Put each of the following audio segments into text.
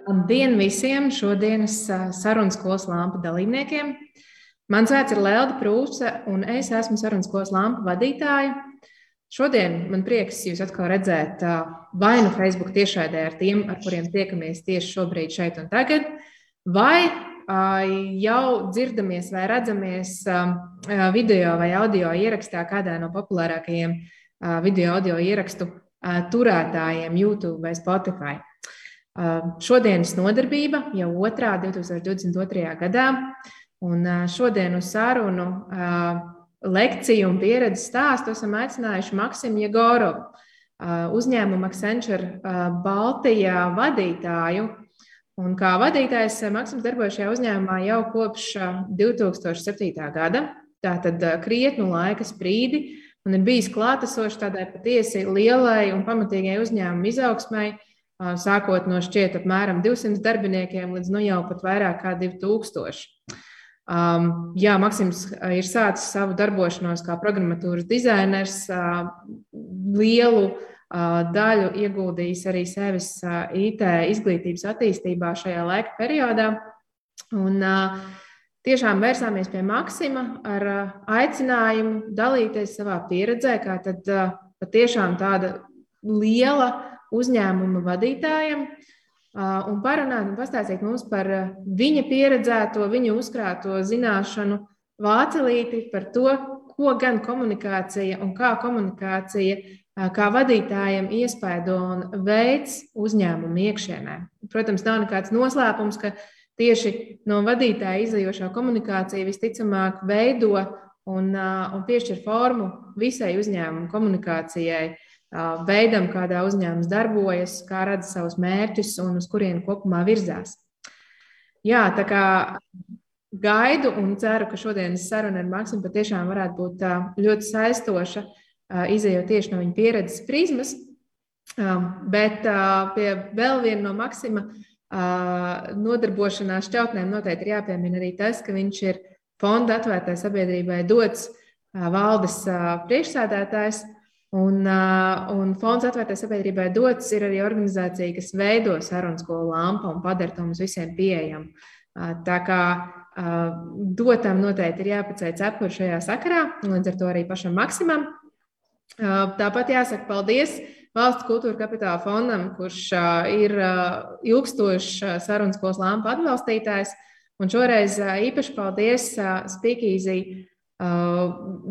Labdien visiem šodienas sarunas skolas lampu dalībniekiem. Mans vārds ir Lelda Prūse, un es esmu sarunas skolas lampu vadītāja. Šodien man prieks jūs atkal redzēt vai nu Facebook tiešraidē ar tiem, ar kuriem tiekamies tieši šobrīd šeit un tagad, vai jau dzirdamies vai redzamies video vai audio ierakstā kādā no populārākajiem video audio ierakstu turētājiem YouTube vai Spotify. Šodienas nodarbība jau otrā 2022. gadā, un šodien uz sarunu lekciju un pieredzes stāstu esam aicinājuši Maksimu Jegorovu, uzņēmuma Accenture Baltijā vadītāju. Un kā vadītājs Maksims darbojas šajā uzņēmumā jau kopš 2007. gada, tātad krietnu laika sprīdi, un ir bijis klātesošs tādai patiesi lielai un pamatīgai uzņēmuma izaugsmai, sākot no šķiet apmēram 200 darbiniekiem līdz nu jau pat vairāk kā 2000. Jā, Maksims ir sācis savu darbošanos kā programmatūras dizainers, lielu daļu ieguldījis arī sevis IT izglītības attīstībā šajā laika periodā. Un tiešām vērsāmies pie Maksima ar aicinājumu dalīties savā pieredzē, kā tad patiešām tāda liela uzņēmuma vadītājiem un parunāt un pastāstīt mums par viņa pieredzēto, viņa uzkrāto zināšanu vācelīti par to, ko gan komunikācija un kā komunikācija kā vadītājiem iespaido un veids uzņēmumu iekšienē. Protams, nav nekāds noslēpums, ka tieši no vadītāja izajošā komunikācija visticamāk veido un piešķir formu visai uzņēmuma komunikācijai, veidam, kādā uzņēmums darbojas, kā redz savus mērķus un uz kurienu kopumā virzās. Jā, tā kā gaidu un ceru, ka šodienas saruna ar Maksimu patiešām varētu būt ļoti saistoša, izejot tieši no viņa pieredzes prizmas, bet pie vēl viena no Maksima nodarbošanās šķautnēm noteikti ir jāpiemina arī tas, ka viņš ir fonda atvērtai sabiedrībai dots valdes priekšsēdētājs. Un fonds atvērtai sabiedrībai dots ir arī organizācija, kas veido sarunu skolu lampu un padara to mums visiem pieejamu. Tā kā dotam noteikti ir jāpaceļ cepuri šajā sakarā, līdz ar to arī pašam Maksimam. Tāpat jāsaka paldies Valsts kultūra kapitāla fondam, kurš ir ilgstošs sarunu skolas lampu atbalstītājs. Un šoreiz īpaši paldies Speakeasy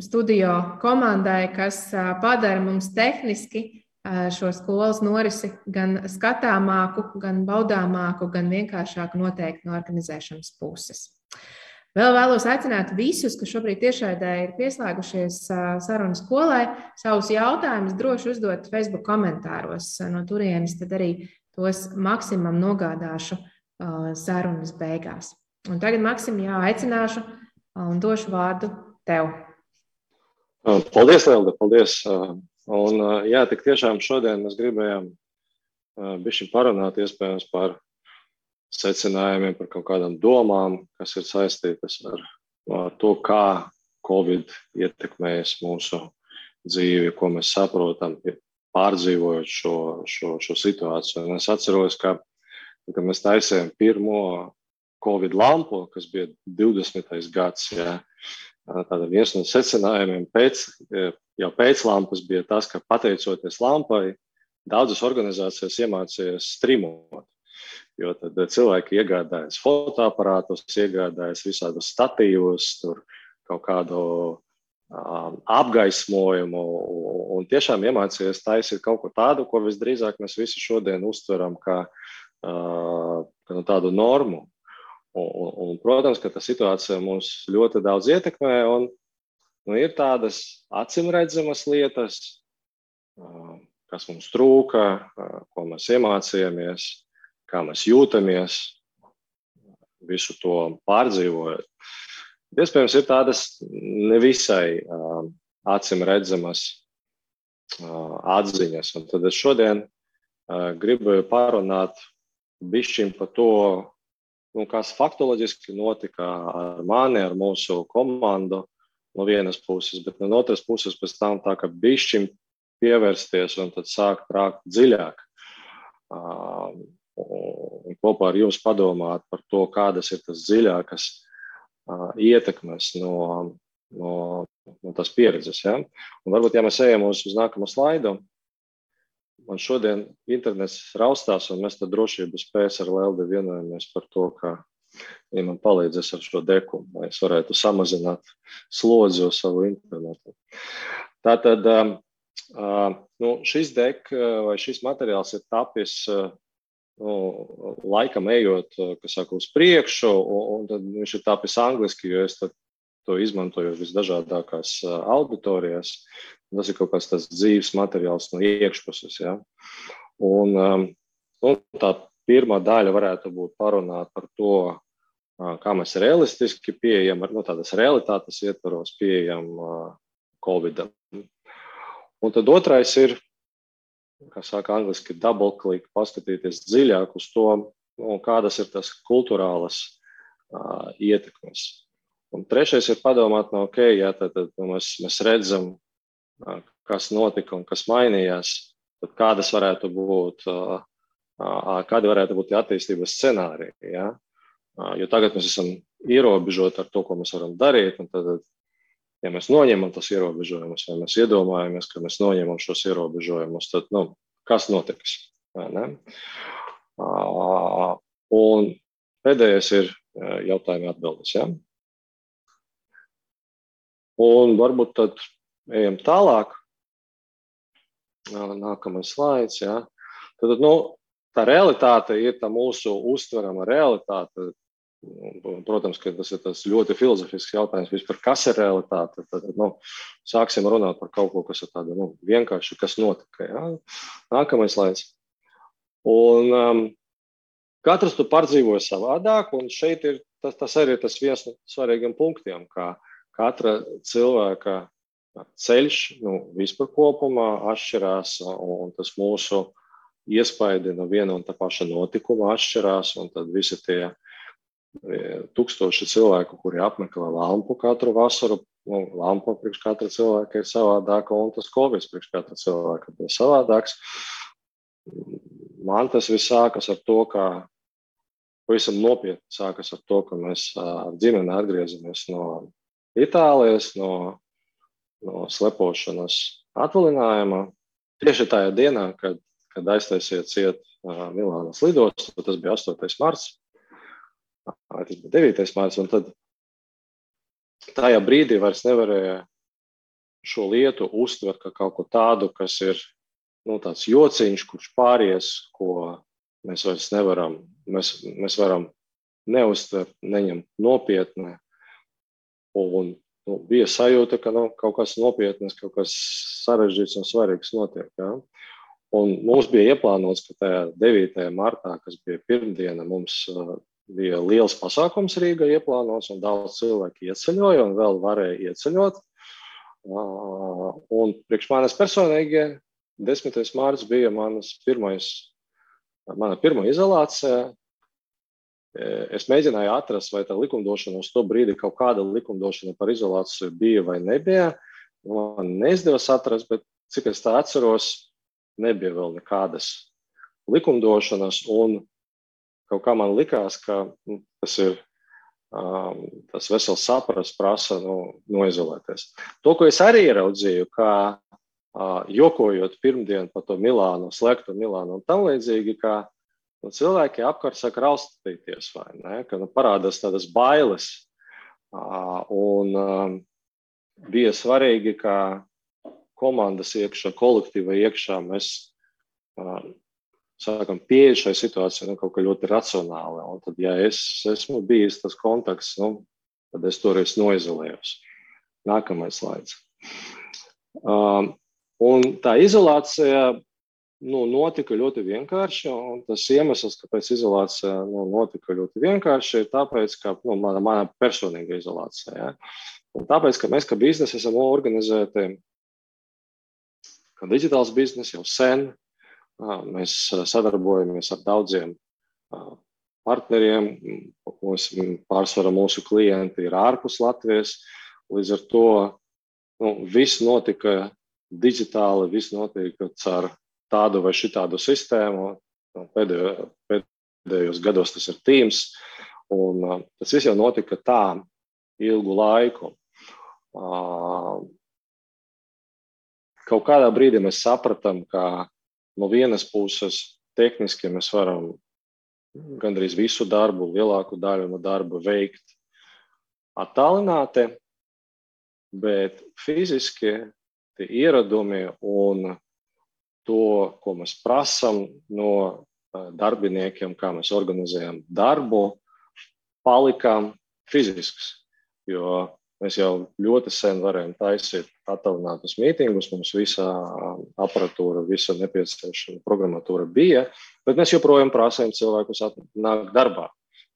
studio komandai, kas padara mums tehniski šo skolas norisi gan skatāmāku, gan baudāmāku, gan vienkāršāku noteikti no organizēšanas puses. Vēl vēlos aicināt visus, kas šobrīd tiešraidē ir pieslēgušies sarunu skolai, savus jautājumus droši uzdot Facebook komentāros. No turienes tad arī tos Maksimam nogādāšu sarunas beigās. Un tagad Maksim aicināšu un došu vārdu tev. Paldies, Lelda, paldies. Un jā, tik tiešām šodien mēs gribējām bišķi parunāt iespējams par secinājumiem, par kaut kādām domām, kas ir saistītas ar to, kā Covid ietekmējas mūsu dzīvi, ko mēs saprotam, pārdzīvojot šo situāciju. Un es atceros, ka mēs taisījām pirmo Covid lampu, kas bija 20. gads, jā. Tātad viens no secinājumiem jau pēc lampas bija tas, ka pateicoties lampai, daudzas organizācijas iemācījās strimot. Jo tad cilvēki iegādājas fotoaparātus, iegādājas visādus statīvus, tur kaut kādu apgaismojumu un tiešām iemācījās taisīt kaut ko tādu, ko visdrīzāk mēs visi šodien uztveram kā tādu normu. Un, protams, ka tā situācija mums ļoti daudz ietekmē un ir tādas acimredzamas lietas, kas mums trūka, ko mēs iemācījāmies, kā mēs jūtamies, visu to pārdzīvojot. Iespējams, ir tādas nevisai acimredzamas atziņas. Un tad es šodien gribu parunāt bišķiņ par to, kas faktoloģiski notika ar mani, ar mūsu komandu no vienas puses, bet no otras puses pēc tam tā, ka bišķiņ pievērsties un tad sākt rākt dziļāk. Un kopā ar jums padomāt par to, kādas ir tas dziļākas ietekmes no tās pieredzes. Ja? Un varbūt, ja mēs ejam uz nākamo slaidu, man šodien internets raustās, un mēs tad drošības pēc ar Leldi vienojamies par to, ka ja man palīdzēs ar šo deku, lai es varētu samazināt slodzi uz savu internetu. Tātad šis dek vai šis materiāls ir tapis laikam ejot, kas saka, uz priekšu, un tad viņš ir tapis angliski, jo es to izmantoju visdažādākās auditorijās. Tas ir kaut kāds tas dzīves materiāls no iekšpuses. Ja? Un tā pirmā daļa varētu būt parunāt par to, kā mēs realistiski pieejam, tādas realitātes ietvaros pieejam Covidam. Un tad otrais ir, kā saka angliski, double click, paskatīties dziļāk uz to, kādas ir tas kulturālas ietekmes. Un trešais ir padomāt, tad mēs redzam, kas notika un kas mainījās, tad kādi varētu būt attīstības scenāriji. Ja? Jo tagad mēs esam ierobežoti ar to, ko mēs varam darīt, un tad, ja mēs noņemam tos ierobežojumus, vai mēs iedomājamies, ka mēs noņemam šos ierobežojumus, tad, kas notiks? Ne? Un pēdējais ir jautājumi atbildes. Ja? Un varbūt tad ejam tālāk. Nākamais slaids. Ja? Tad, tā realitāte ir tā mūsu uztverama realitāte. Protams, ka tas ir tas ļoti filozofisks jautājums vispār, kas ir realitāte. Tad, sāksim runāt par kaut ko, kas ir tāda vienkārši, kas notika. Ja? Nākamais slaids. Un katrs tu pārdzīvoja savādāk, un šeit ir tas arī tas viens no svarīgiem punktiem, kā katra cilvēka ceļš vispār kopumā atšķirās, un tas mūsu iespaidi no viena un tā paša notikuma atšķirās, un tad visi tie tūkstoši cilvēku, kuri apmeklē lampu katru vasaru, lampa priekš katra cilvēka ir savādāka, un tas Covid priekš katra cilvēka ir savādāks. Man tas viss sākas ar to, ka pavisam nopietni sākas ar to, ka mēs ar ģimeni atgriezamies no Itālijas, no slepošanas atvaļinājuma. Tieši tajā dienā, kad aiztaisiet ciet Milānas lidostu, tas bija 8. marts. Tas bija 9. marts, un tad tajā brīdī vairs nevarēja šo lietu uztvert kā kaut ko tādu, kas ir tāds jociņš, kurš pāries, ko mēs vairs nevaram, mēs varam neuztvert, neņemt nopietni. Un bija sajūta, ka kaut kas nopietnas, kaut kas sarežģīts un svarīgs notiek. Ja? Un mums bija ieplānots, ka tajā 9. martā, kas bija pirmdiena, mums bija liels pasākums Rīgā ieplānots, un daudz cilvēki ieceļoja un vēl varēja ieceļot. Un priekš manis personīgi 10. mārts bija mana pirmā izolācija. Es mēģināju atrast, vai tā likumdošana uz to brīdi kaut kāda likumdošana par izolāciju bija vai nebija. Man neizdevās atrast, bet cik es tā atceros, nebija vēl nekādas likumdošanas, un kaut kā man likās, ka tas ir tas vesels saprast prasa noizolēties. To, ko es arī ieraudzīju, kā jokojot pirmdien par to Milānu, slēgto Milānu un tam līdzīgi, ka cilvēki apkārt saka raustīties, vai ne, ka parādās tādas bailes. Un bija svarīgi, ka komandas iekšā, kolektīva iekšā mēs sākam pieeja šai situācijai kaut kā ļoti racionāli. Un tad, ja es esmu bijis tas kontakts, tad es toreiz noizolējos. Nākamais slaids. Un tā izolācija notika ļoti vienkārši, un tas iemesls, kāpēc izolācija notika ļoti vienkārši, ir tāpēc, ka mana personīga izolācija. Ja? Un tāpēc, ka mēs kā biznesi esam organizēti, kā digitāls biznes jau sen, mēs sadarbojamies ar daudziem partneriem, pārsvarā mūsu klienti ir ārpus Latvijas, līdz ar to viss notika digitāli, viss notiek ar tādu vai šitādu sistēmu. Pēdējos gados tas ir Teams, un tas viss jau notika tā ilgu laiku. Kaut kādā brīdī mēs sapratām, ka no vienas puses tehniski mēs varam gandrīz visu darbu, lielāku daļu no darba veikt attālināti, bet fiziski tie ieradumi un to, ko mēs prasam no darbiniekiem, kā mēs organizējam darbu, palikām fizisks, jo mēs jau ļoti sen varējām taisīt attālinātus mītingus, mums visa aparatūra, visa nepieciešama programmatūra bija, bet mēs joprojām prasījām cilvēkus nākt darbā.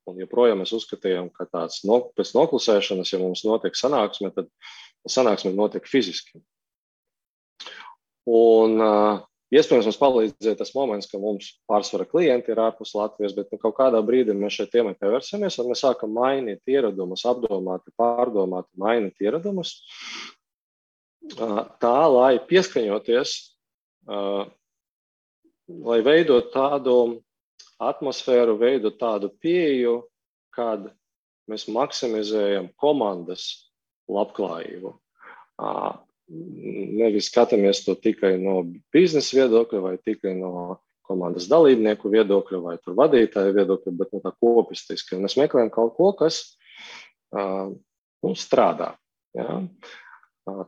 Un joprojām mēs uzskatījām, ka tāds pēc noklusēšanas, ja mums notiek sanāksme, tad sanāksme notiek fiziski. Un iespējams mums palīdzēja tas moments, ka mums pārsvara klienti ir ārpus Latvijas, bet kaut kādā brīdī mēs šeit tēmai pievērsamies, un mēs sākam mainīt ieradumus, apdomāti, pārdomāti, mainīt ieradumus, tā, lai pieskaņoties, lai veidot tādu atmosfēru, veidot tādu pieeju, kad mēs maksimizējam komandas labklājību. Nevis skatāmies to tikai no biznesa viedokļa vai tikai no komandas dalībnieku viedokļa vai tur vadītāju viedokļa, bet no tā kopistiski. Un mēs meklējam kaut ko, kas strādā. Ja?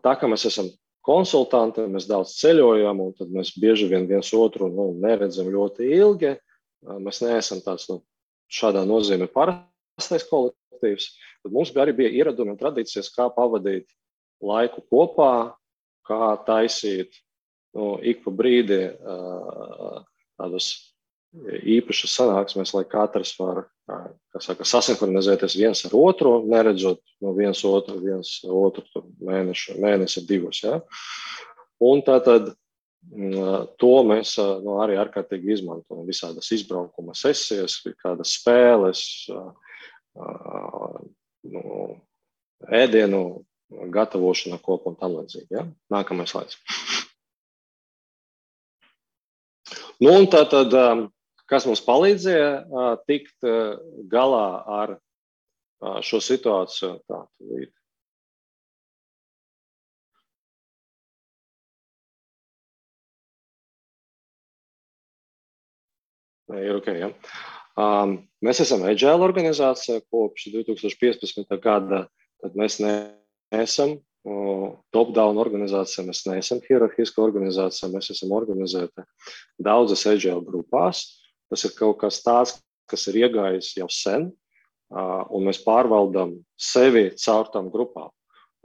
Tā kā mēs esam konsultanti, mēs daudz ceļojam, un tad mēs bieži vien viens otru neredzam ļoti ilgi. Mēs neesam tāds šādā nozīmē parastais kolektīvs. Tad mums arī bija ieradumi un tradīcijas, kā pavadīt laiku kopā, kā taisīt ik pa brīdi tādas īpašas sanāksmes, lai katrs var sasinhronizēties viens ar otru, neredzot no viens otru mēnesi divus. Ja? Un tātad to mēs arī ārkārtīgi izmantojam. Visādas izbraukuma sesijas, kādas spēles, ēdienu gatavošana kopā un tam līdzīgi. Ja? Nākamais slaids. Un tātad, kas mums palīdzēja tikt galā ar šo situāciju? Ir ok, ja? Mēs esam Agile organizācija kopš 2015. gada, tad mēs neesam top-down organizācija, mēs neesam hierarhiska organizācija, mēs esam organizēti daudzas Agile grupās. Tas ir kaut kas tāds, kas ir iegājis jau sen, un mēs pārvaldam sevi caur tām grupām.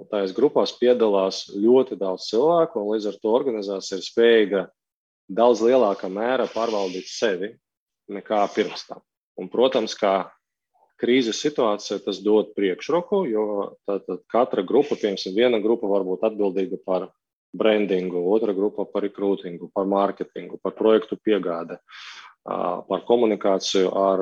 Un tajās grupās piedalās ļoti daudz cilvēku, un līdz ar to organizācija ir spējīga daudz lielākā mērā pārvaldīt sevi nekā pirms tam. Un, protams, kā krīzes situācija tas dod priekšroku, jo tātad katra grupa, piemēram, viena grupa var būt atbildīga par brandingu, otra grupa par rekrūtingu, par mārketingu, par projektu piegāde, par komunikāciju ar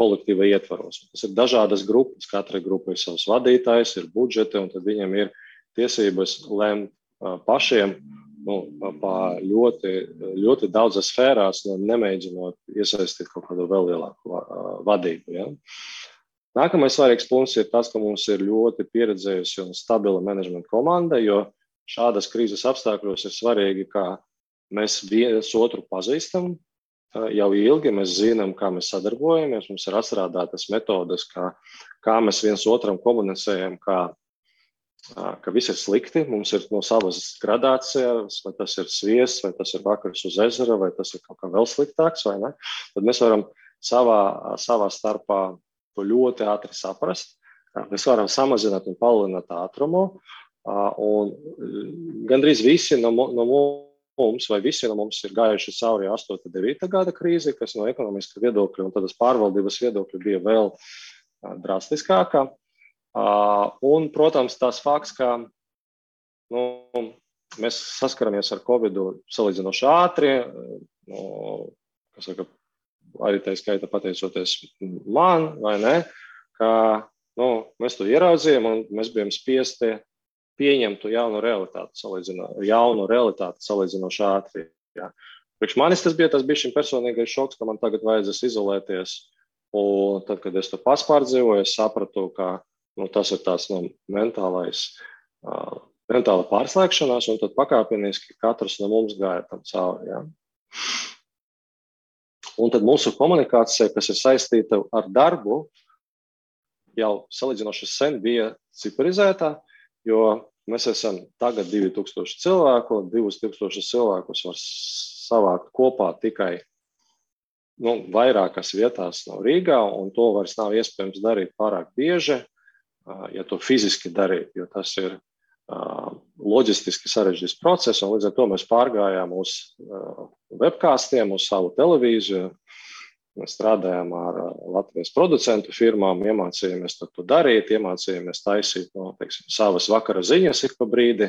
kolektīva ietvaros. Tas ir dažādas grupas, katra grupa ir savs vadītājs, ir budžeti, un tad viņiem ir tiesības lemt pašiem ļoti, ļoti daudzas sfērās, nemēģinot iesaistīt kaut kādu vēl lielāku vadību. Ja? Nākamais svarīgs punkts ir tas, ka mums ir ļoti pieredzējusi un stabila menedžmenta komanda, jo šādas krīzes apstākļos ir svarīgi, ka mēs viens otru pazīstam jau ilgi, mēs zinām, kā mēs sadarbojamies, mums ir atstrādātas metodes, kā mēs viens otram komunicējam, ka viss ir slikti, mums ir no savas gradācijas, vai tas ir sviests, vai tas ir vakars uz ezera, vai tas ir kaut kā vēl sliktāks, vai ne? Tad mēs varam savā starpā to ļoti ātri saprast. Mēs varam samazināt un palielināt ātrumu, un gandrīz visi no mums, vai visi no mums ir gājuši cauri 8.9. gada krīzi, kas no ekonomiska viedokļa un tādas pārvaldības viedokļa bija vēl drastiskākā. Un, protams, tās fakts, ka mēs saskaramies ar Covidu salīdzinoši ātri, arī tā skaita pateicoties man, vai ne, ka mēs to ieraudzījām un mēs bijām spiesti pieņemtu jaunu realitāti salīdzinoši ātri. Jā. Priekš manis tas bija personīgais šoks, ka man tagad vajadzēs izolēties. Un tad, kad es to paspārdzīvoju, es sapratu, ka tas ir tās mentāla pārslēgšanās, un tad pakāpeniski katrs no mums gāja tam cauri. Jā. Un tad mūsu komunikācija, kas ir saistīta ar darbu, jau salīdzinoši sen bija ciparizētā, jo mēs esam tagad 2000 cilvēku, 2000 cilvēkus var savākt kopā tikai vairākās vietās no Rīgā, un to vairs nav iespējams darīt pārāk bieži, ja to fiziski darīt, jo tas ir loģistiski sarežģīts process, un līdz ar to mēs pārgājām uz webkāstiem, uz savu televīziju, mēs strādājām ar Latvijas producentu firmām, iemācījāmies to darīt, iemācījāmies taisīt savas vakara ziņas ik pa brīdi,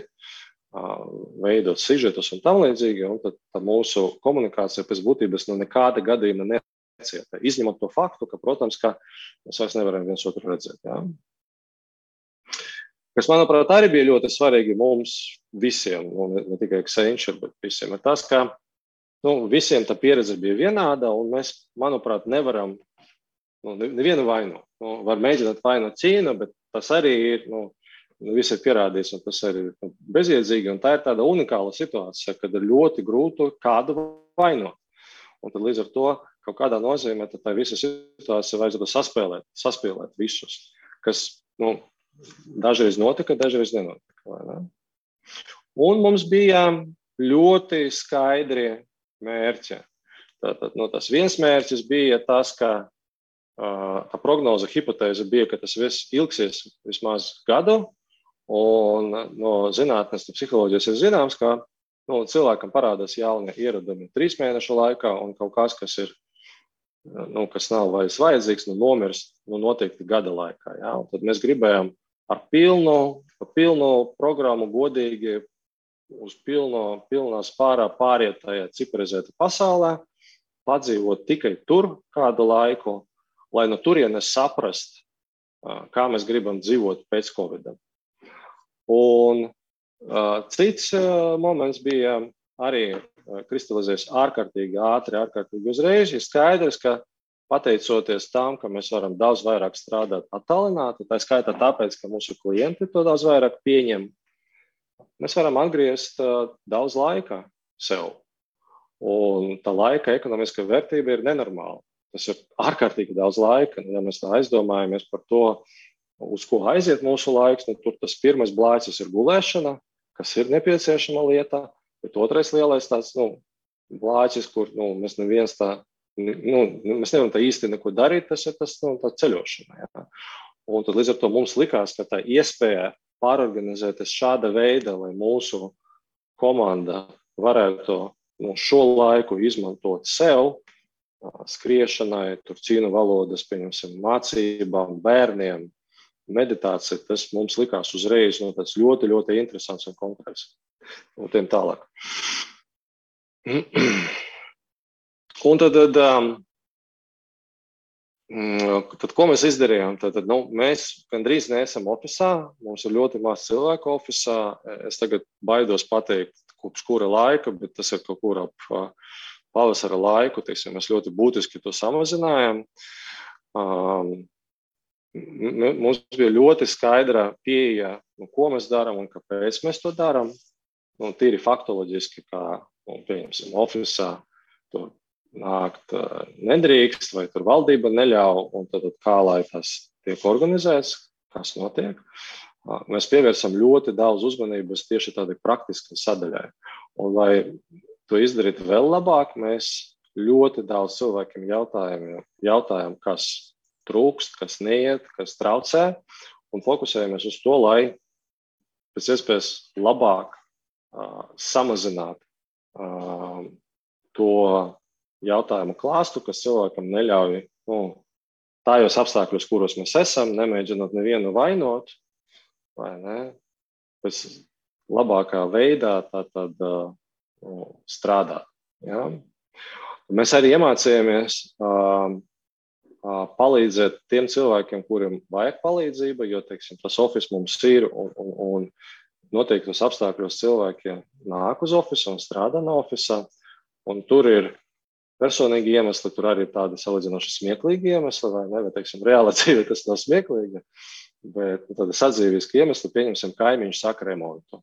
veidot sižetus un tam līdzīgi, un tad mūsu komunikācija pēc būtības nekāda gadījuma necieta, izņemot to faktu, ka, protams, ka mēs vairs nevaram viens otru redzēt. Jā. Kas, manuprāt, arī bija ļoti svarīgi mums visiem, ne tikai Accenture, bet visiem, ir tas, ka visiem tā pieredze bija vienāda, un mēs, manuprāt, nevaram nevienu vainu. Var mēģināt vainot Ķīnu, bet tas arī ir, viss ir pierādījis, un tas arī ir bezjēdzīgi, un tā ir tāda unikāla situācija, kad ir ļoti grūti kādu vainot. Un tad līdz ar to kaut kādā nozīmē, tad tā visa situācija vajadzētu saspēlēt visus, kas, dažreiz notika, dažreiz nenotika. Vai ne? Un mums bija ļoti skaidri mērķi. Tātad, tas viens mērķis bija tas, ka tā prognoze, hipotēze bija, ka tas viss ilgsies vismaz gadu, un no zinātnes, no psiholoģijas ir zināms, ka cilvēkam parādās jauni ieradumi 3 mēnešu laikā, un kaut kas ir, kas nav vairs vajadzīgs, nomirst noteikti gada laikā. Jā? Un tad mēs gribējām ar pilnu programmu godīgi uz pilnā spārā pāriet tajā ciparizēta pasaulē, padzīvot tikai tur kādu laiku, lai no turienes saprast, kā mēs gribam dzīvot pēc Covid. Un cits moments bija arī kristalizēs ārkārtīgi ātri, ārkārtīgi uzreiz. Ir skaidrs, ka pateicoties tam, ka mēs varam daudz vairāk strādāt attālināti, tā skaitā tāpēc, ka mūsu klienti to daudz vairāk pieņem, mēs varam atgriezt daudz laika sev. Un tā laika ekonomiskā vērtība ir nenormāla. Tas ir ārkārtīgi daudz laika. Ja mēs tā aizdomājamies par to, uz ko aiziet mūsu laiks, tur tas pirmais blācis ir gulēšana, kas ir nepieciešama lieta, bet otrais lielais tāds blācis, kur mēs neviens tā mēs nevaram tā īsti neko darīt, tas ir tā ceļošana. Jā. Un tad līdz ar to mums likās, ka tā iespēja pārorganizēties šāda veida, lai mūsu komanda varētu šo laiku izmantot sev, skriešanai, cīnu valodas, pieņemsim, mācībām, bērniem, meditācija, tas mums likās uzreiz tāds ļoti, ļoti interesants un konkrēts. Un tiem tālāk. Un tad, ko mēs izdarījām? Mēs gandrīz neesam ofisā, mums ir ļoti maz cilvēku ofisā. Es tagad baidos pateikt, kopš kura laika, bet tas ir kaut kur ap pavasara laiku. Mēs ļoti būtiski to samazinājām. Mums bija ļoti skaidra pieeja, ko mēs darām un kāpēc mēs to darām. Tīri faktoloģiski, kā, pieņemsim, ofisā tur nākt nedrīkst, vai tur valdība neļauj, un tad kā lai tas tiek organizēts, kas notiek. Mēs pievērsam ļoti daudz uzmanības tieši tādai praktiskai sadaļai. Un, lai to izdarītu vēl labāk, mēs ļoti daudz cilvēkiem jautājam, kas trūkst, kas neiet, kas traucē, un fokusējamies uz to, lai pēc iespējas labāk samazināt to jautājumu klāstu, kas cilvēkam neļauj tājos apstākļos, kuros mēs esam, nemēģinot nevienu vainot, vai ne, pēc labākā veidā strādāt. Ja? Mēs arī iemācījāmies palīdzēt tiem cilvēkiem, kuriem vajag palīdzību, jo, teiksim, tas office mums ir un noteiktos apstākļos cilvēkiem nāk uz ofisu un strādā no ofisā, un tur ir personīgi iemesli, tur arī ir tādi salīdzinoši smieklīgi iemesli, vai ne, vai, teiksim, reāla dzīve tas nav smieklīgi, bet tādi sadzīviski iemesli, pieņemsim, kaimiņš saka remontu.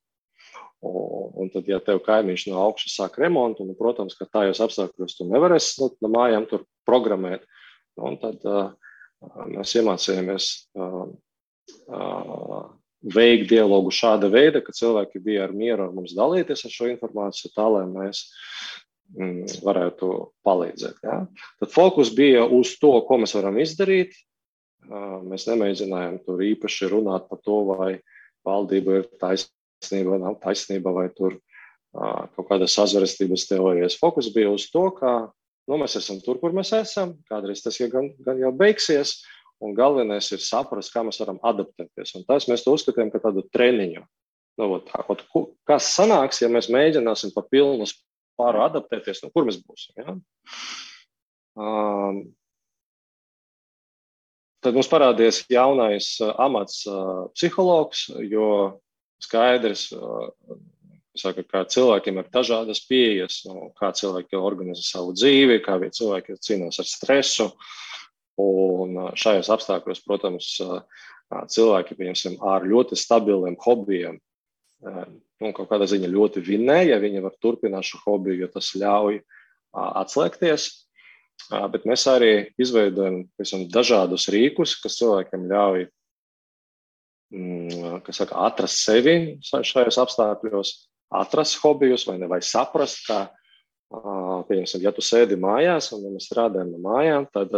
Un tad, ja tev kaimiņš no augšas sāk remontu, un, protams, ka tajos apstākļos tu nevarēsi no mājām tur programmēt, un tad mēs iemācījāmies veikt dialogu šāda veida, ka cilvēki bija ar mieru ar mums dalīties ar šo informāciju tā, lai mēs varētu palīdzēt. Ja? Tad fokus bija uz to, ko mēs varam izdarīt. Mēs nemēģinājām tur īpaši runāt par to, vai valdība ir taisnība, nav taisnība, vai tur kaut kādas sazvērestības teorijas. Fokus bija uz to, ka mēs esam tur, kur mēs esam, kādreiz tas gan jau beigsies, un galvenais ir saprast, kā mēs varam adaptēties. Un tas mēs to uzskatījām, ka tādu treniņu. Kas sanāks, ja mēs mēģināsim pa pilnu spāru adaptēties, kur mēs būsim. Ja? Tad mums parādījās jaunais amats psihologs, jo skaidrs, ka cilvēkiem ir dažādas pieejas, kā cilvēki organizē savu dzīvi, kā cilvēki cīnās ar stresu. Un šajos apstākļos, protams, cilvēki, pieņemsim, ar ļoti stabiliem hobijiem, kaut kādā ziņa ļoti vinnē, ja viņi var turpināt šo hobiju, jo tas ļauj atslēgties. Bet mēs arī izveidojam dažādus rīkus, kas cilvēkiem ļauj atrast sevi šajos apstākļos, atrast hobijus vai saprast, ka, pieņemsim, ja tu sēdi mājās un mēs strādājam no mājām, tad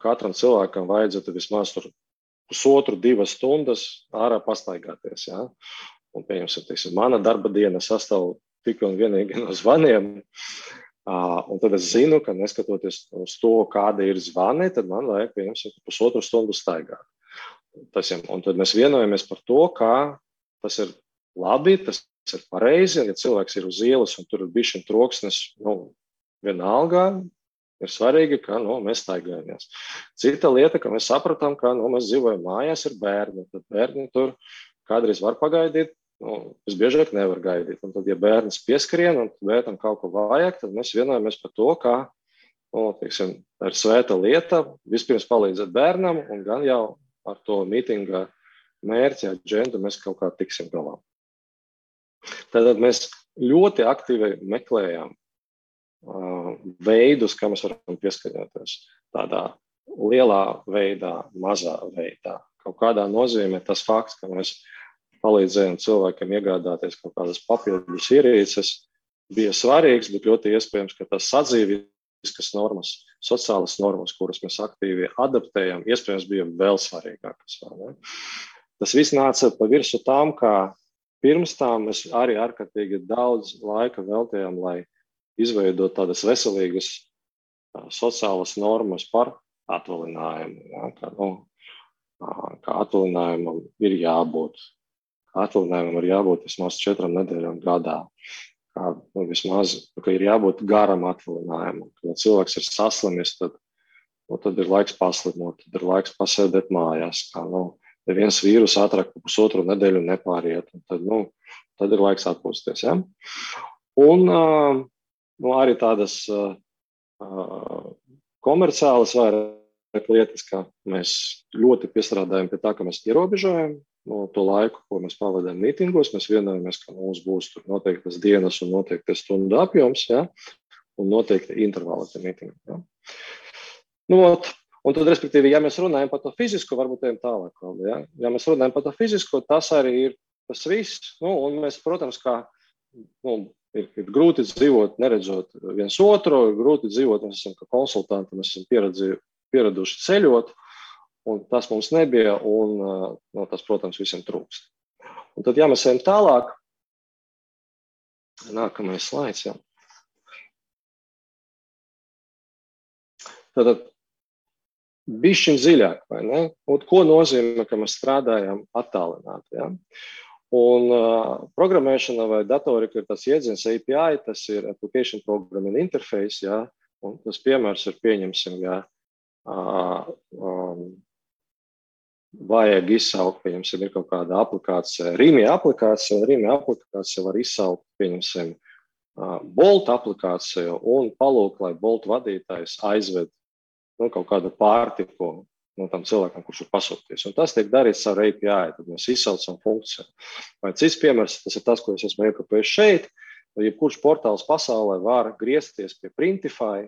katram cilvēkam vajadzētu vismaz 1,5–2 stundas ārā pastaigāties. Ja? Un, pieņemsim, mana darba diena sastāv tikai un vienīgi no zvaniem. Un tad es zinu, ka neskatoties uz to, kāda ir zvani, tad man vajag, pieņemsim, 1,5 stundu staigāt. Un tad mēs vienojamies par to, ka tas ir labi, tas ir pareizi, un ja cilvēks ir uz ielas un tur ir bišķiņ troksnis, vienalga, ir svarīgi, ka mēs staigājamies. Cita lieta, ka mēs sapratām, ka mēs dzīvojam mājās, ir bērni. Tad bērni tur kādreiz var pagaidīt, visbiežāk nevar gaidīt. Un tad, ja bērns pieskrien un bērnam kaut ko vajag, tad mēs vienojamies par to, ka ir svēta lieta vispirms palīdzēt bērnam, un gan jau ar to mītinga mērķi, aģendu mēs kaut kā tiksim galā. Tad mēs ļoti aktīvi meklējām veidus, kā mēs varam pieskaņoties tādā lielā veidā, mazā veidā. Kaut kādā nozīmē tas fakts, ka mēs palīdzējām cilvēkiem iegādāties kaut kādas papildus ierīces, bija svarīgs, bet ļoti iespējams, ka tas sadzīviskas normas, sociālas normas, kuras mēs aktīvi adaptējam, iespējams bija vēl svarīgākas. Tas viss nāca pa virsu tām, ka pirms tām mēs arī ārkārtīgi daudz laika veltījām, lai izveidot tādas veselīgas sociālas normas par atvaļinājumu. Ja? Kā atvaļinājumam ir jābūt. Atvaļinājumam ir jābūt vismaz 4 nedēļām gadā. Vismaz, ka ir jābūt garam atvaļinājumam. Kad cilvēks ir saslimis, tad ir laiks paslimot, tad ir laiks pasēdēt mājās. Neviens vīrus ātrāk pa 1,5 nedēļu nepāriet. Tad ir laiks atpūsties. Ja? Un arī tādas komerciālas vairāk lietas, ka mēs ļoti piestrādājam pie tā, ka mēs ierobežojam to laiku, ko mēs pavadām mītingos. Mēs vienojamies, ka mums būs tur noteiktas dienas un noteiktas stundu apjoms, ja? Un noteikti intervāli tie mītingi. Ja? Un tad, respektīvi, ja mēs runājam par to fizisko, varbūt ejam tālāk. Ja? Ja mēs runājam par to fizisko, tas arī ir tas viss. Un mēs, protams, kā ir grūti dzīvot, neredzot viens otru, ir grūti dzīvot, mēs esam kā konsultanti, mēs esam pieraduši ceļot, un tas mums nebija, un tas, protams, visiem trūkst. Un tad, ja mēs ejam tālāk, nākamais slaids, jā. Tad bišķiņ dziļāk, vai ne? Un ko nozīmē, ka mēs strādājam attālināti, ja? Un programmēšana vai datorika ir tas jēdziens API, tas ir Application Programming Interface, ja? Un tas piemērs ir pieņemsim, ja vajag izsaukt, pieņemsim, ir kaut kāda aplikācija, Rīmī aplikācija, un Rīmī aplikācija var izsaukt, pieņemsim, Bolt aplikāciju un palūk, lai Bolt vadītājs aizved kaut kādu pārtiku tam cilvēkam, kurš ir pasūtījis. Un tas tiek darīts ar API, tad mēs izsaucam funkciju. Vai cits piemērs, tas ir tas, ko es esmu iekopējis šeit, jebkurš portāls pasaulē var griezties pie Printify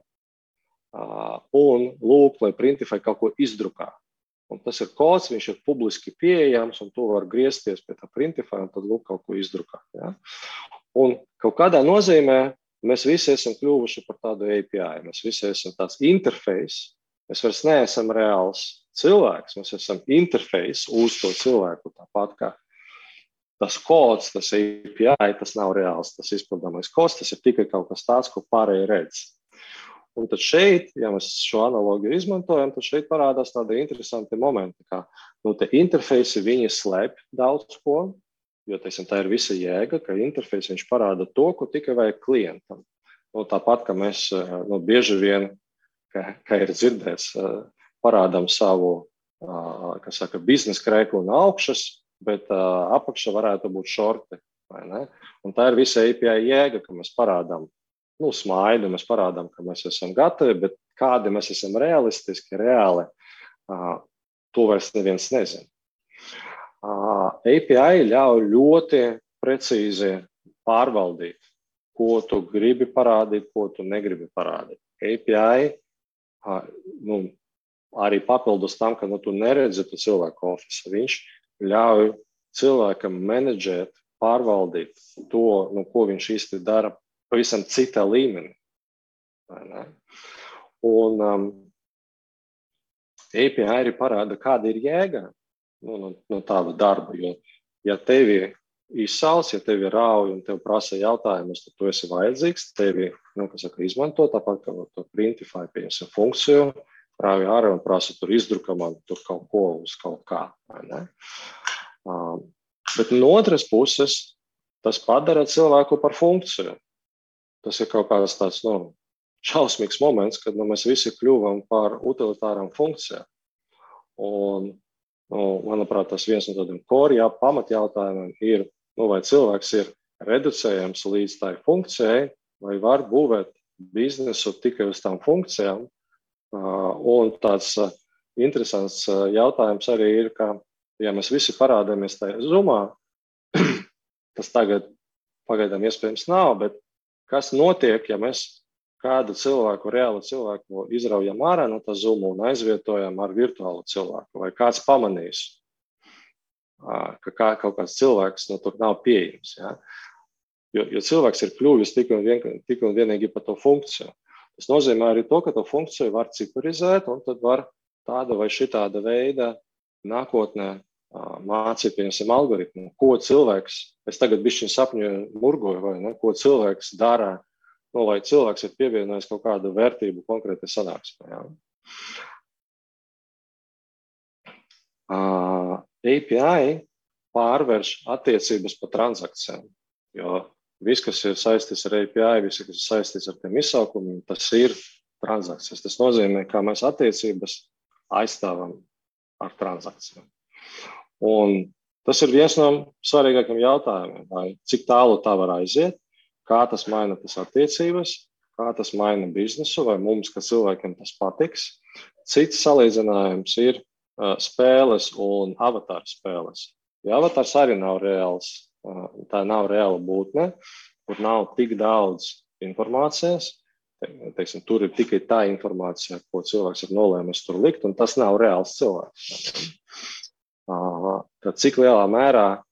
un lūgt, lai Printify kaut ko izdrukā. Un tas ir kods, viņš ir publiski pieejams, un tu var griezties pie tā Printify un tad lūk kaut ko izdrukāt. Ja? Un kaut kādā nozīmē mēs visi esam kļuvuši par tādu API. Mēs visi esam tāds interfejs. Mēs vairs neesam reāls cilvēks. Mēs esam interfejs uz to cilvēku. Tāpat kā tas kods, tas API, tas nav reāls, tas izpildāmais kods, tas ir tikai kaut kas tāds, ko pārējie redz. Un tad šeit, ja mēs šo analogiju izmantojam, tad šeit parādās tādi interesanti momenti, kā te interfejsi, viņi slēp daudz ko, jo, teiksim, tā ir visa jēga, ka interfejs viņš parāda to, ko tikai vajag klientam. Tāpat, ka mēs bieži vien, kā ir dzirdēts, parādām savu, kā saka, biznesa krēklu no augšas, bet apakšā varētu būt šorti, vai ne? Un tā ir visa API jēga, ka mēs parādām smaidu, mēs parādām, ka mēs esam gatavi, bet kādi mēs esam realistiski, reāli, to vairs neviens nezina. API ļauj ļoti precīzi pārvaldīt, ko tu gribi parādīt, ko tu negribi parādīt. API arī papildus tam, ka tu neredzi tu cilvēku ofisu. Viņš ļauj cilvēkam menedžēt, pārvaldīt to, ko viņš īsti dara pavisam citā līmenī. Un API arī parāda, kāda ir jēga no tāda darba. Jo, ja tevi izsauc, ja tevi rauj un tev prasa jautājumus, tad tu esi vajadzīgs, tevi izmanto, tāpat kā to Printify, pieņemsim funkciju, rauj ārā un prasa tur izdruka man tur kaut ko uz kaut kā. Bet no otras puses, tas padara cilvēku par funkciju. Tas ir kaut kāds tāds šausmīgs moments, kad mēs visi kļuvam par utilitārām funkcijām. Un, manuprāt, tas viens no tādiem pamatjautājumiem ir, vai cilvēks ir reducējams līdz tai funkcijai, vai var būvēt biznesu tikai uz tām funkcijām. Un tāds interesants jautājums arī ir, ka, ja mēs visi parādāmies tajā Zoomā, tas tagad pagaidām iespējams nav, bet kas notiek, ja mēs kādu cilvēku, reālu cilvēku izraujam ārā no tā Zoom un aizvietojam ar virtuālu cilvēku? Vai kāds pamanīs, ka kaut kāds cilvēks tur nav pieejams? Ja? Jo cilvēks ir kļuvis tikai un vienīgi par to funkciju. Tas nozīmē arī to, ka to funkciju var ciparizēt un tad var tāda vai šitāda veida nākotnē mācīt, pieņemsim, algoritmu, ko cilvēks, es tagad bišķiņ sapņoju, murgoju, vai ne, ko cilvēks dara, lai cilvēks ir pievienojis kaut kādu vērtību konkrētai sanāksmē. Ja. API pārvērš attiecības pa transakcijām, jo viss, kas ir saistīts ar API, viss, kas ir saistīts ar tiem izsaukumiem, tas ir transakcijas. Tas nozīmē, kā mēs attiecības aizstāvam ar transakcijām. Un tas ir viens no svarīgākiem jautājumiem, vai cik tālu tā var aiziet, kā tas maina tas attiecības, kā tas maina biznesu, vai mums, kā cilvēkiem, tas patiks. Cits salīdzinājums ir spēles un avatāru spēles. Ja avatārs arī nav reāls, tā nav reāla būtne, kur nav tik daudz informācijas, teiksim, tur ir tikai tā informācija, ko cilvēks ir nolēmis tur likt, un tas nav reāls cilvēks. Tad cik lielā mērā,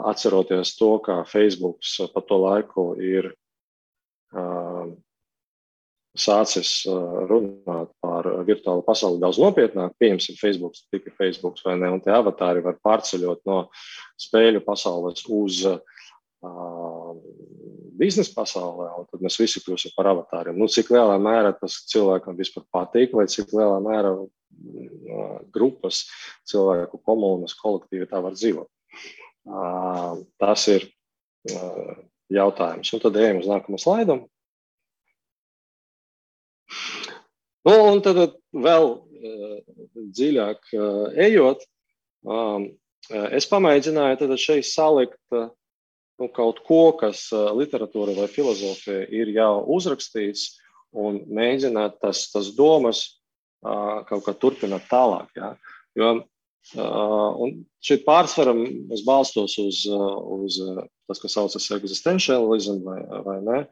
atceroties to, ka Facebooks pa to laiku ir sācis runāt par virtuālu pasauli daudz nopietnāk, pieņemsim Facebooks, tikai Facebooks vai ne, un tie avatāri var pārceļot no spēļu pasaules uz biznesa pasaulē, un tad mēs visi kļūsim par avatāriem. Cik lielā mērā tas cilvēkam vispār patīk, vai cik lielā mērā grupas, cilvēku komunas, kolektīvi tā var dzīvot. Tas ir jautājums. Un tad ejam uz nākamo slaidu. Un tad vēl dziļāk ejot, Es pamēģināju tad šeit salikt kaut ko, kas literatūra vai filozofija ir jau uzrakstīts, un mēģināt tas domas kaut kā turpināt tālāk. Ja? Jo un šeit pārsvaram es balstos uz tas, kas saucas existentialism vai ne.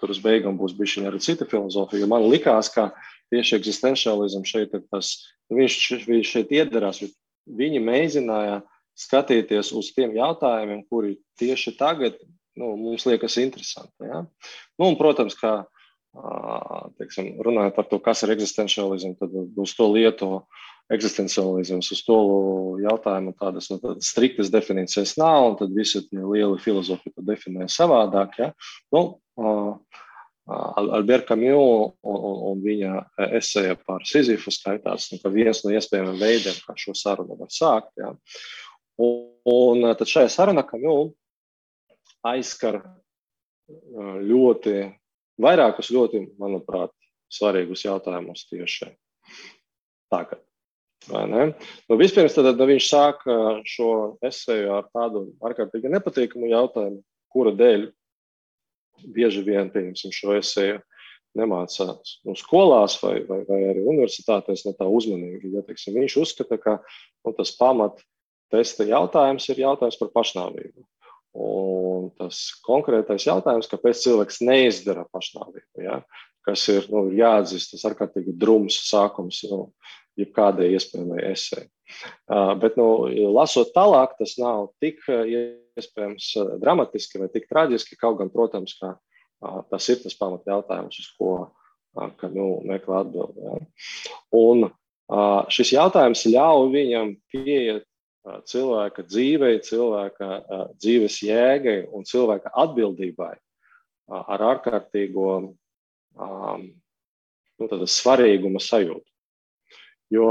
Tur uz beigām būs bišķiņ arī cita filozofija, jo man likās, ka tieši existentialism šeit ir tas, viņš šeit iedarās, viņi mēģināja skatīties uz tiem jautājumiem, kuri tieši tagad mums liekas interesanti. Ja? Un, protams, ka teiksim, runājot par to, kas ir existentialism, tad uz to lietu eksistencialisms, uz to jautājumu tādas striktas definīcijas nav, un tad visi tie lieli filozofi to definē savādāk. Ja? Albert Camus un viņa eseja par Sizifu skaitās, ka viens no iespējamiem veidiem, kā šo sarunu var sākt. Ja? Un tad šajā sarunā Camus aizskar vairākus ļoti, manuprāt, svarīgus jautājumus tieši tagad. Vai ne? Vispirms tad viņš sāk šo eseju ar tādu ārkārtīgi nepatīkamu jautājumu, kura dēļ bieži vien, pieņemsim, šo eseju nemācās skolās vai arī universitātēs no tā uzmanīgi. Ja, teiksim, viņš uzskata, ka tas pamat testa jautājums ir jautājums par pašnāvību. Un tas konkrētais jautājums, kāpēc cilvēks neizdara pašnāvību, ja? Kas ir jāatzīst, tas ārkārtīgi drums sākums jebkādai iespējamai esei. Bet, lasot tālāk, tas nav tik iespējams dramatiski vai tik traģiski, kaut gan, protams, ka tas ir tas pamat jautājums, uz ko meklē atbildi. Ja? Un šis jautājums ļauj viņam pieiet cilvēka dzīvei, cilvēka dzīves jēgai un cilvēka atbildībai ar ārkārtīgo svarīguma sajūtu. Jo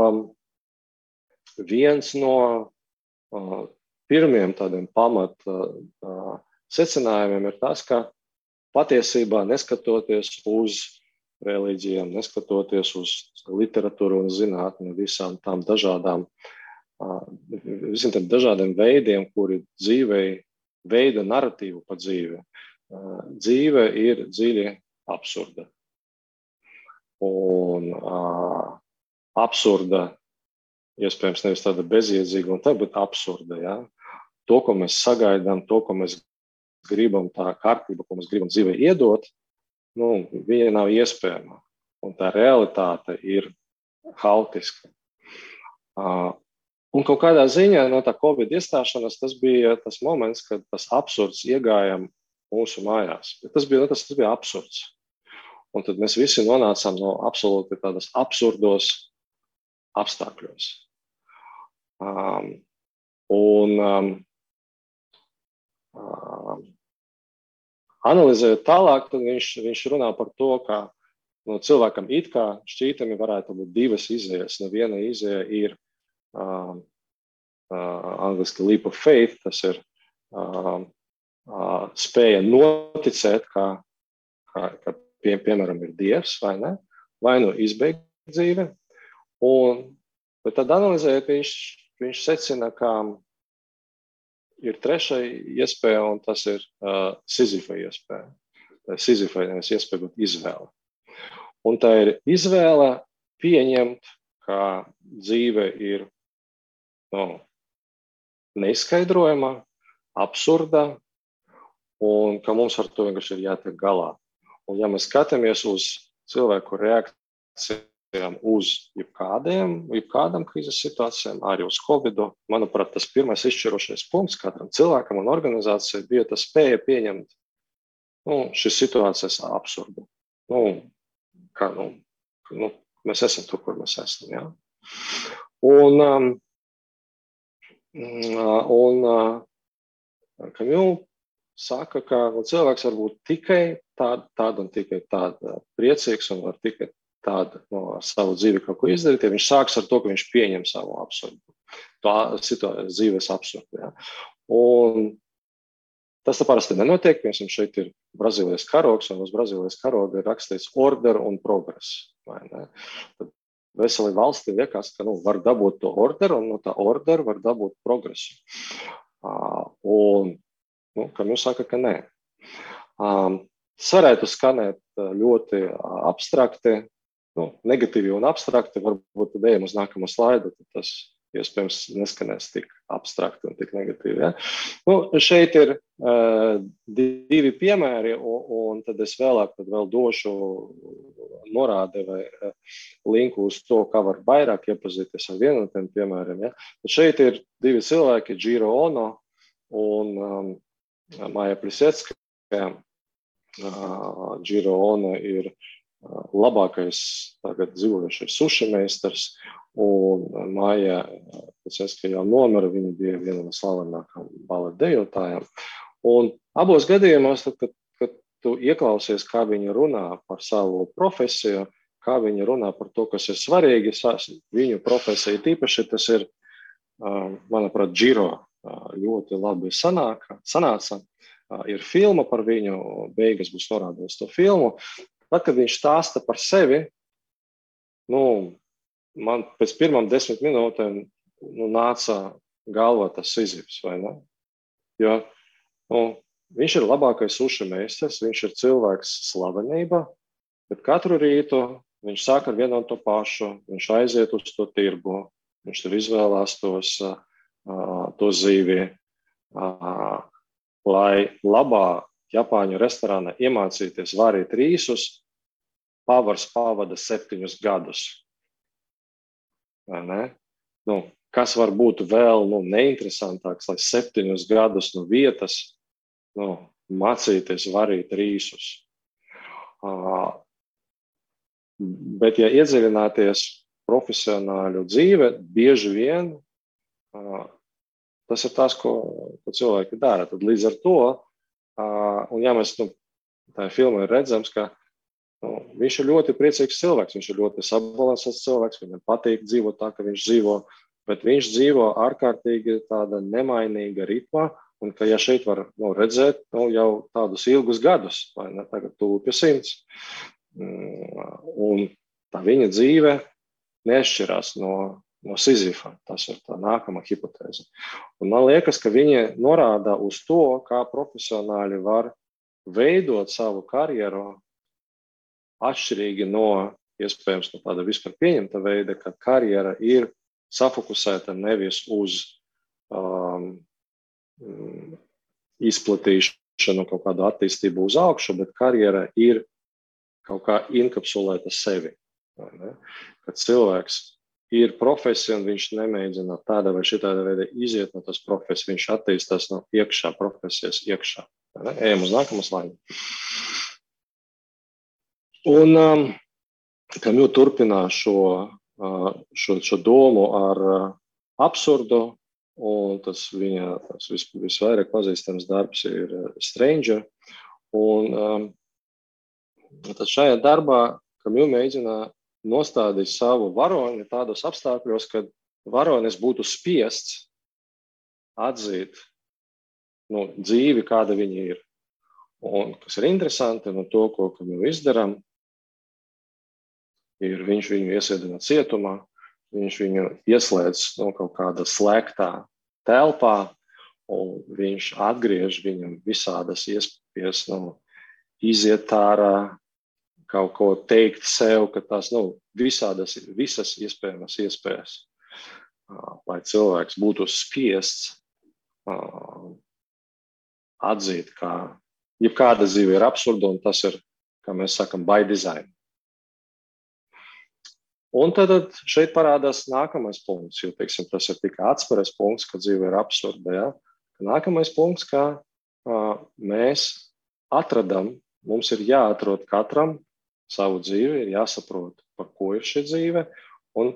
viens no pirmiem tādiem pamat secinājumiem ir tas, ka patiesībā neskatoties uz reliģijām, neskatoties uz literatūru un zinātni, visiem tiem dažādiem veidiem, kuri dzīvei veida narratīvu par dzīvi, dzīve ir dziļi absurda. Un absurda, iespējams, nevis tāda bezjēdzīga, bet absurda. Ja? To, ko mēs sagaidām, to, ko mēs gribam, tā kārtība, ko mēs gribam dzīvē iedot, viņa nav iespējama. Un tā realitāte ir haotiska. Un kaut kādā ziņā no tā Covid iestāšanās tas bija tas moments, kad tas absurds iegāja mūsu mājās. Tas bija absurds. Un tad mēs visi nonācām no absolūti tādas absurdos apstākļos. Analizējot tālāk, tad viņš runā par to, ka cilvēkam it kā šķītami varētu būt divas izējas. Viena izēja ir angliski leap of faith, tas ir spēja noticēt, ka piemēram ir Dievs, vai ne? Vai izbeigt dzīvi. Bet tad analizējot, viņš secina, ka ir trešā iespēja, un tas ir Sizifa iespēja. Tā ir Sizifa iespēja būt izvēle. Un tā ir izvēle pieņemt, ka dzīve ir neizskaidrojama, absurda, un ka mums ar to vienkārši ir jātiek galā. Un ja mēs skatāmies uz cilvēku reakcijām uz jebkādām krīzes situācijām, arī uz Covidu, manuprāt, tas pirmais izšķirošais punkts katram cilvēkam un organizācijai bija tas spēja pieņemt šīs situācijas absurdu. Mēs esam tur, kur mēs esam. Ja? Camus saka, ka cilvēks var būt tikai tāda un tikai tāda priecīgs un var tikai tāda savu dzīvi kaut ko izdarīt, ja viņš sāks ar to, ka viņš pieņem savu absurdu, dzīves absurdu. Ja? Un tas parasti nenotiek, piemēram, šeit ir Brazīlijas karogs, un uz Brazīlijas karoga ir rakstīts order un progress. Vai ne? Tad veseli valsti liekas, ka var dabūt to orderu, un no tā ordera var dabūt progresu. Un kam jūs saka, ka nē. Tas varētu skanēt ļoti abstrakti, negatīvi un abstrakti, varbūt tad ejam uz nākamo slaidu, tad tas iespējams neskanēs tik abstrakti un tik negatīvi. Ja? Šeit ir 2 piemēri, un tad es vēl došu norādi vai linku uz to, kā var vairāk iepazīties ar vienu no tiem piemēriem. Ja? Tad šeit ir 2 cilvēki, Jiro Ono un Maja Plisetskaya. Jiro Ono ir labākais tagad dzīvojušais suši meistars, un Maja Plisetskaya jau nomira, viņa bija viena no slavenākām baleta dejotājām. Un abos gadījumos, kad tu ieklausies, kā viņa runā par savu profesiju, kā viņa runā par to, kas ir svarīgi, viņu profesija tīpaši, tas ir, manuprāt, Jiro ļoti labi sanāca. Ir filma par viņu, beigas būs norādījis to filmu. Tad, kad viņš stāsta par sevi, man pēc pirmām 10 minūtēm nāca galvā tas Sizifs, vai ne? Jo viņš ir labākais suši meistars, viņš ir cilvēks slavenība, bet katru rītu viņš sāk ar vienu un to pašu, viņš aiziet uz to tirgu, viņš tur izvēlās to zīvi, lai labā Japāņu restorānā iemācīties varīt rīsus, pavars pavada 7 gadus. Vai ne? Kas var būt vēl neinteresantāks, lai 7 gadus no vietas mācīties varīt rīsus. Bet, ja iedziļināties profesionāļu dzīve, bieži vien tas ir tas, ko cilvēki dara. Tad līdz ar to, un ja mēs tā filmā ir redzams, ka viņš ir ļoti priecīgs cilvēks, viņš ir ļoti sabalansēts cilvēks, viņam patīk dzīvot tā, ka viņš dzīvo, bet viņš dzīvo ārkārtīgi tāda nemainīga ritmā, un ka ja šeit var redzēt jau tādus ilgus gadus, vai ne, tagad tuvu pie 100. Un tā viņa dzīve nešķirās no Sizifa. Tas ir tā nākamā hipotēze. Un man liekas, ka viņi norāda uz to, kā profesionāļi var veidot savu karjeru atšķirīgi no, iespējams, no tāda vispār pieņemta veida, ka karjera ir safokusēta nevis uz izplatīšanu, kaut kādu attīstību uz augšu, bet karjera ir kaut kā inkapsulēta sevi. Kad cilvēks ir profesija, un viņš nemēģina tāda vai šitāda veida iziet no tas profesijas, viņš attīstās no iekšā, profesijas iekšā. Ejam uz nākamo slaidu. Un Kamju turpinā šo domu ar absurdu, un tas viņa visvairāk pazīstams darbs ir Stranger. Un tad šajā darbā Kamju mēģina nostādīt savu varoni tādos apstākļos, kad varonis būtu spiests atzīt dzīvi, kāda viņa ir. Un kas ir interesanti no to, ko Kamju izdaram, ir viņš viņu iesēdina cietumā, viņš viņu ieslēdz kaut kādā slēgtā telpā, un viņš atgriež viņam visādas iespējas iziet ārā, kaut ko teikt sev, ka tās visas iespējamas iespējas, lai cilvēks būtu spiests atzīt, ka jebkāda dzīve ir absurda, un tas ir, kā mēs sakam, by design. Un tad šeit parādās nākamais punkts, jo, teiksim, tas ir tikai atspēres punkts, ka dzīve ir absurda. Ja? Nākamais punkts, ka mēs atradam, mums ir jāatrod katram savu dzīvi, ir jāsaprot, par ko ir šī dzīve, un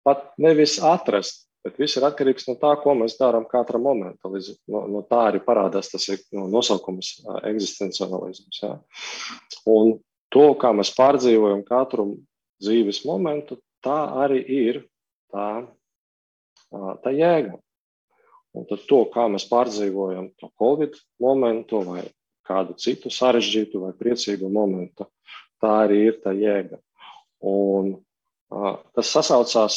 pat nevis atrast, bet viss ir atkarīgs no tā, ko mēs darām katra momenta. No tā arī parādās tas nosaukums eksistenciālisms. Ja? Un to, kā mēs pārdzīvojam katru dzīves momentu, tā arī ir tā jēga. Un tad to, kā mēs pārdzīvojam to Covid momentu vai kādu citu sarežģītu vai priecīgu momentu, tā arī ir tā jēga. Un tas sasaucās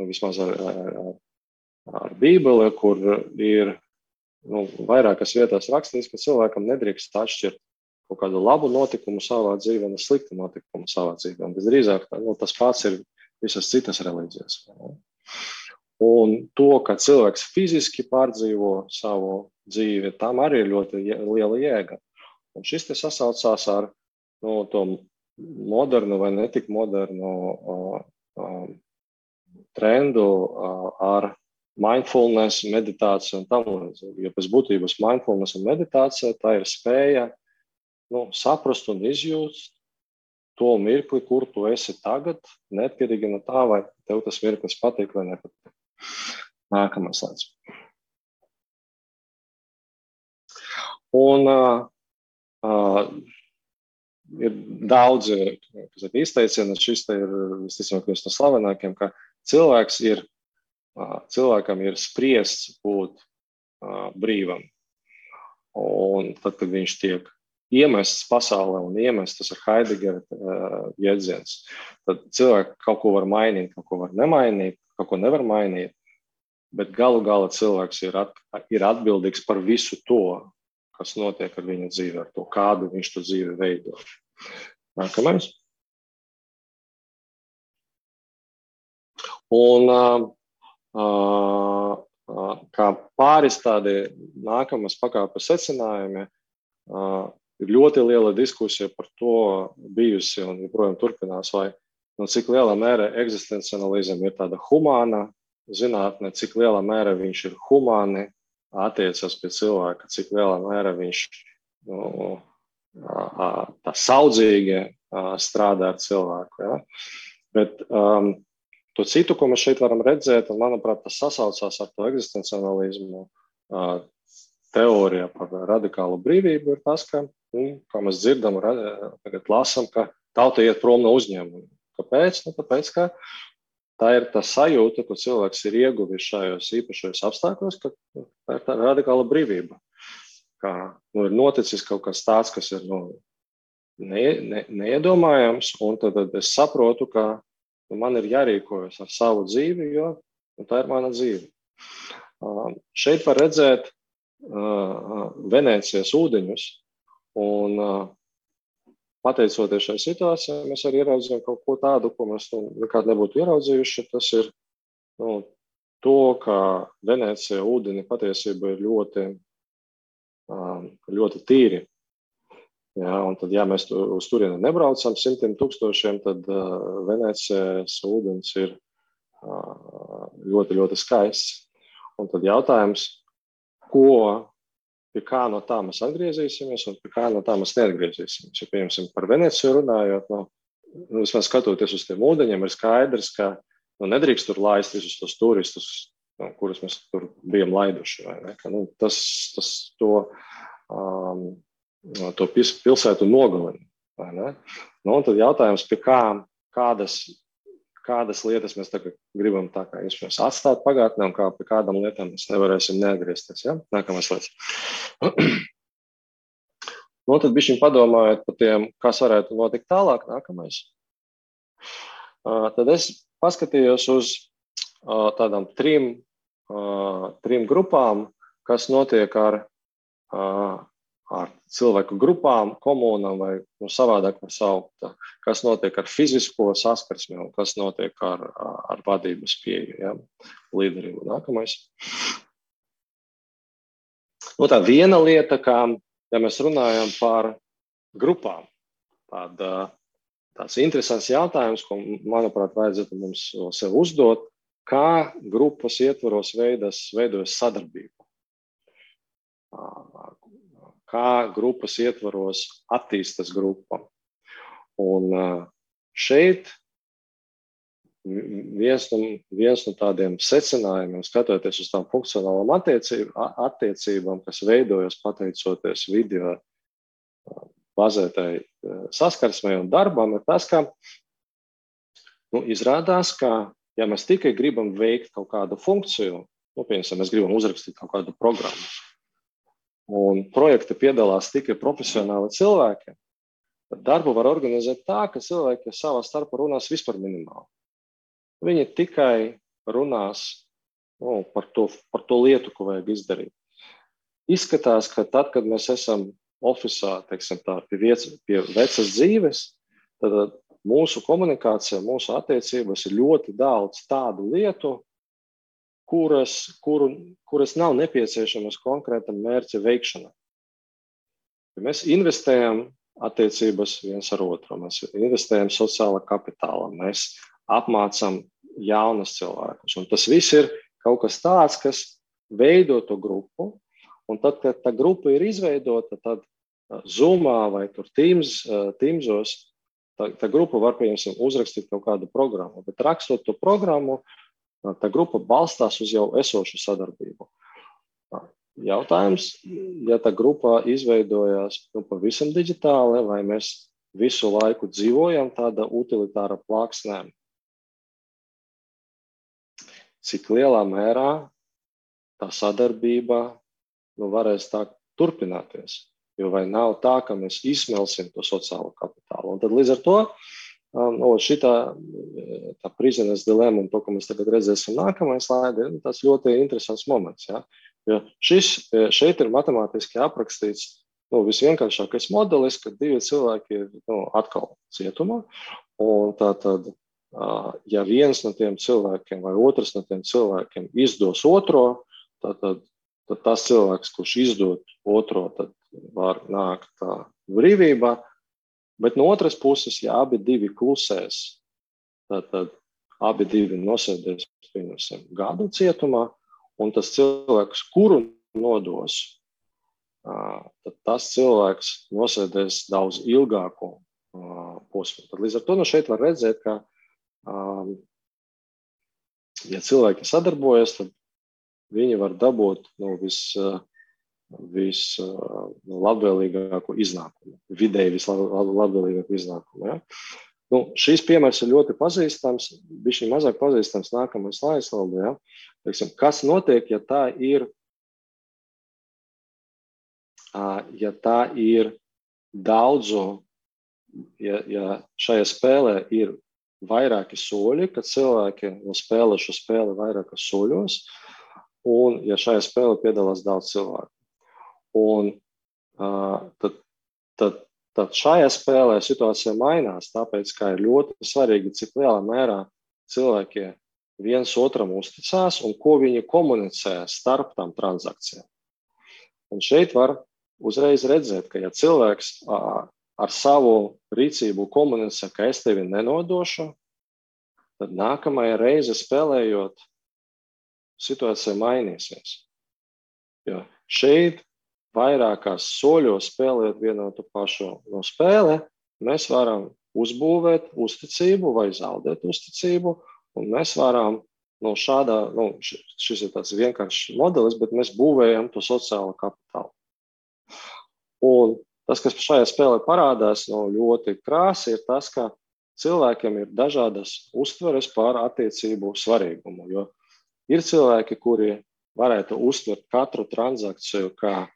vismaz ar Bībeli, kur ir vairākas vietās rakstīts, ka cilvēkam nedrīkst atšķirt kaut kādu labu notikumu savā dzīvē un sliktu notikumu savā dzīvē. Un visdrīzāk tas pats ir visas citas reliģijas. Un to, ka cilvēks fiziski pārdzīvo savu dzīvi, tam arī ir ļoti liela jēga. Un šis te sasaucās ar to modernu vai netik modernu trendu ar mindfulness, meditāciju un tam līdzīgi. Jo pēc būtības mindfulness un meditācija tā ir spēja saprast un izjust to mirkli, kur tu esi tagad, neatkarīgi no tā, vai tev tas mirklis patīk vai nepatīk. Nākamais slaids. Un ir daudzi izteicieni, šis te ir visticamāk viens no slavenākiem, ka cilvēkam ir spriests būt brīvam. Un tad, kad viņš tiek iemests pasaulē un iemests, tas ir Heidegera jēdziens, tad cilvēki kaut ko var mainīt, kaut ko var nemainīt, kaut ko nevar mainīt, bet galu galā cilvēks ir atbildīgs par visu to, kas notiek ar viņa dzīvi, ar to, kādu viņš to dzīvi veido. Nākamais. Un kā pāris tādi nākamas pakāpes secinājumi, ir ļoti liela diskusija par to bijusi un joprojām turpinās, vai cik lielā mērā eksistenciālisms ir tāda humāna zinātne, cik lielā mērā viņš ir humāni attiecas pie cilvēka, cik lielā mērā viņš tā saudzīgi strādā ar cilvēku. Ja? Bet to citu, ko mēs šeit varam redzēt, un manuprāt, tas sasaucās ar to eksistenciālismu teorija par radikālu brīvību, ir tas, ka, kā mēs dzirdam, tagad lasam, ka tauta iet prom no uzņēmuma. Kāpēc? Tāpēc, ka tā ir tā sajūta, ko cilvēks ir ieguvis šajos īpašajos apstākļos, ka tā ir tā radikāla brīvība. Kā ir noticis kaut kas tāds, kas ir neiedomājams, un tad es saprotu, ka man ir jārīkojas ar savu dzīvi, jo tā ir mana dzīve. Šeit var redzēt Venēcijas ūdeņus, un pateicoties šai situācijai, mēs arī ieraudzījām kaut ko tādu, ko mēs nekad nebūtu ieraudzījuši. Tas ir to, ka Venēcija ūdeni patiesībā ir ļoti tīri. Ja, un tad, ja mēs uz turieni nebraucam 100 000, tad Venēcijas ūdens ir ļoti, ļoti skaists. Un tad jautājums, pie kā no tā mēs atgriezīsimies un pie kā no tā mēs neatgriezīsimies. Ja, piemēram, par Venēciju runājot, vismaz skatoties uz tiem ūdeņiem, ir skaidrs, ka nedrīkst tur laist visus tos turistus, kurus mēs tur bijām laiduši. Vai ne? Ka, to pilsētu nogalina. Vai ne? Un tad jautājums, pie kādas lietas mēs tagad gribam tā kā iespējams atstāt pagātnē un pie kādām lietām mēs nevarēsim neatgriezties. Ja? Nākamais lietas. Tad bišķiņ padomājot par tiem, kas varētu notikt tālāk. Nākamais. Tad es paskatījos uz tādām trim grupām, kas notiek ar cilvēku grupām, komunām vai savādāk var saukt, kas notiek ar fizisko saskarsmi un kas notiek ar vadības pieeju, ja, līderību. Nākamais. Tā viena lieta, ja mēs runājam par grupām, tāds interesants jautājums, ko, manuprāt, vajadzētu mums sev uzdot, kā grupas ietvaros veidojas sadarbība. Kā grupas ietvaros attīstas grupa. Un šeit viens no tādiem secinājumiem, skatoties uz tām funkcionālām attiecībām, kas veidojas pateicoties video bazētai saskarsmei un darbam, ir tas, ka izrādās, ka ja mēs tikai gribam veikt kaut kādu funkciju, piemēram, mēs gribam uzrakstīt kaut kādu programmu, un projekta piedalās tikai profesionāli cilvēki, Darbu var organizēt tā, ka cilvēki savā starpā runās vispār minimāli. Viņi tikai runās par to lietu, ko vajag izdarīt. Izskatās, ka tad, kad mēs esam ofisā, teiksim tā, pie vecas dzīves, tad mūsu komunikācija, mūsu attiecības ir ļoti daudz tādu lietu, kuras nav nepieciešamas konkrētam mērķa veikšanai. Ja mēs investējam attiecības viens ar otru, mēs investējam sociālā kapitālā, mēs apmācam jaunus cilvēkus. Un tas viss ir kaut kas tāds, kas veido to grupu, un tad, kad tā grupa ir izveidota, tad Zoomā vai tur Teamsos, tā grupa var, piemēram, uzrakstīt kaut kādu programmu, bet rakstot to programmu, tā grupa balstās uz jau esošu sadarbību. Jautājums, ja tā grupa izveidojās pavisam digitāli, vai mēs visu laiku dzīvojam tāda utilitāra plāksnē, cik lielā mērā tā sadarbība varēs tā turpināties. Jo vai nav tā, ka mēs izsmelsim to sociālo kapitālu. Un tad līdz ar to tā prisoner's dilemma un to, ko mēs tagad redzēsim nākamajā slaidē, ir tas ļoti interesants moments. Ja? Jo šeit ir matemātiski aprakstīts visvienkāršākais modelis, kad divi cilvēki ir atkal cietumā. Un tātad, ja viens no tiem cilvēkiem vai otrs no tiem cilvēkiem izdos otro, tad tas cilvēks, kurš izdod otro, tad var nākt brīvībā. Bet no otras puses, ja abi divi klusēs, tad abi divi nosēdēs gadu cietumā, un tas cilvēks, kuru nodos, tad tas cilvēks nosēdēs daudz ilgāku posmu. Tad līdz ar to šeit var redzēt, ka ja cilvēki sadarbojas, tad viņi var dabūt vislabvēlīgāko iznākumu, vidēji vislabvēlīgāko iznākumu. Ja? Šīs piemērs ir ļoti pazīstams, bišķi mazāk pazīstams nākamais slaids. Ja? Kas notiek, ja tā ir daudzu, ja šajā spēlē ir vairāki soļi, kad cilvēki spēlē šo spēli vairākos soļos, un ja šajā spēlē piedalās daudz cilvēku. Un tad šajā spēlē situācija mainās, tāpēc, ka ir ļoti svarīgi, cik lielā mērā cilvēki viens otram uzticās un ko viņi komunicē starp tām transakcijām. Un šeit var uzreiz redzēt, ka ja cilvēks ar savu rīcību komunicē, ka es tevi nenodošu, tad nākamajā reize spēlējot, situācija mainīsies. Jo šeit vairākās soļos spēlēt vienu to pašu spēli, mēs varam uzbūvēt uzticību vai zaudēt uzticību, un mēs varam šis ir tāds vienkāršs modelis, bet mēs būvējam to sociālo kapitālu. Un tas, kas šajā spēlē parādās ļoti krāsi, ir tas, ka cilvēkiem ir dažādas uztveres par attiecību svarīgumu, jo ir cilvēki, kuri varētu uztvert katru transakciju kā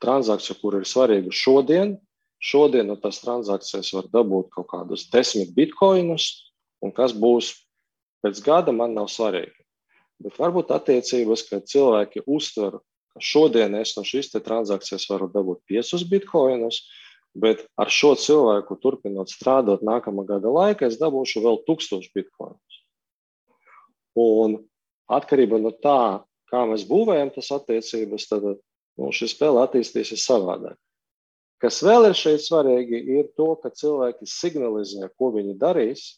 transakciju, kur ir svarīga šodien. Šodien no tās transakcijas var dabūt kaut kādus 10 bitkoinus, un kas būs pēc gada, man nav svarīgi. Bet varbūt attiecības, ka cilvēki uztver, ka šodien es no šīs transakcijas varu dabūt 5 bitkoinus, bet ar šo cilvēku turpinot strādāt nākamā gada laikā, es dabūšu vēl 1000 bitkoinus. Un atkarībā no tā, kā mēs būvējam tas attiecības, tad šī spēle attīstīsies savādāk. Kas vēl ir šeit svarīgi, ir to, ka cilvēki signalizē, ko viņi darīs,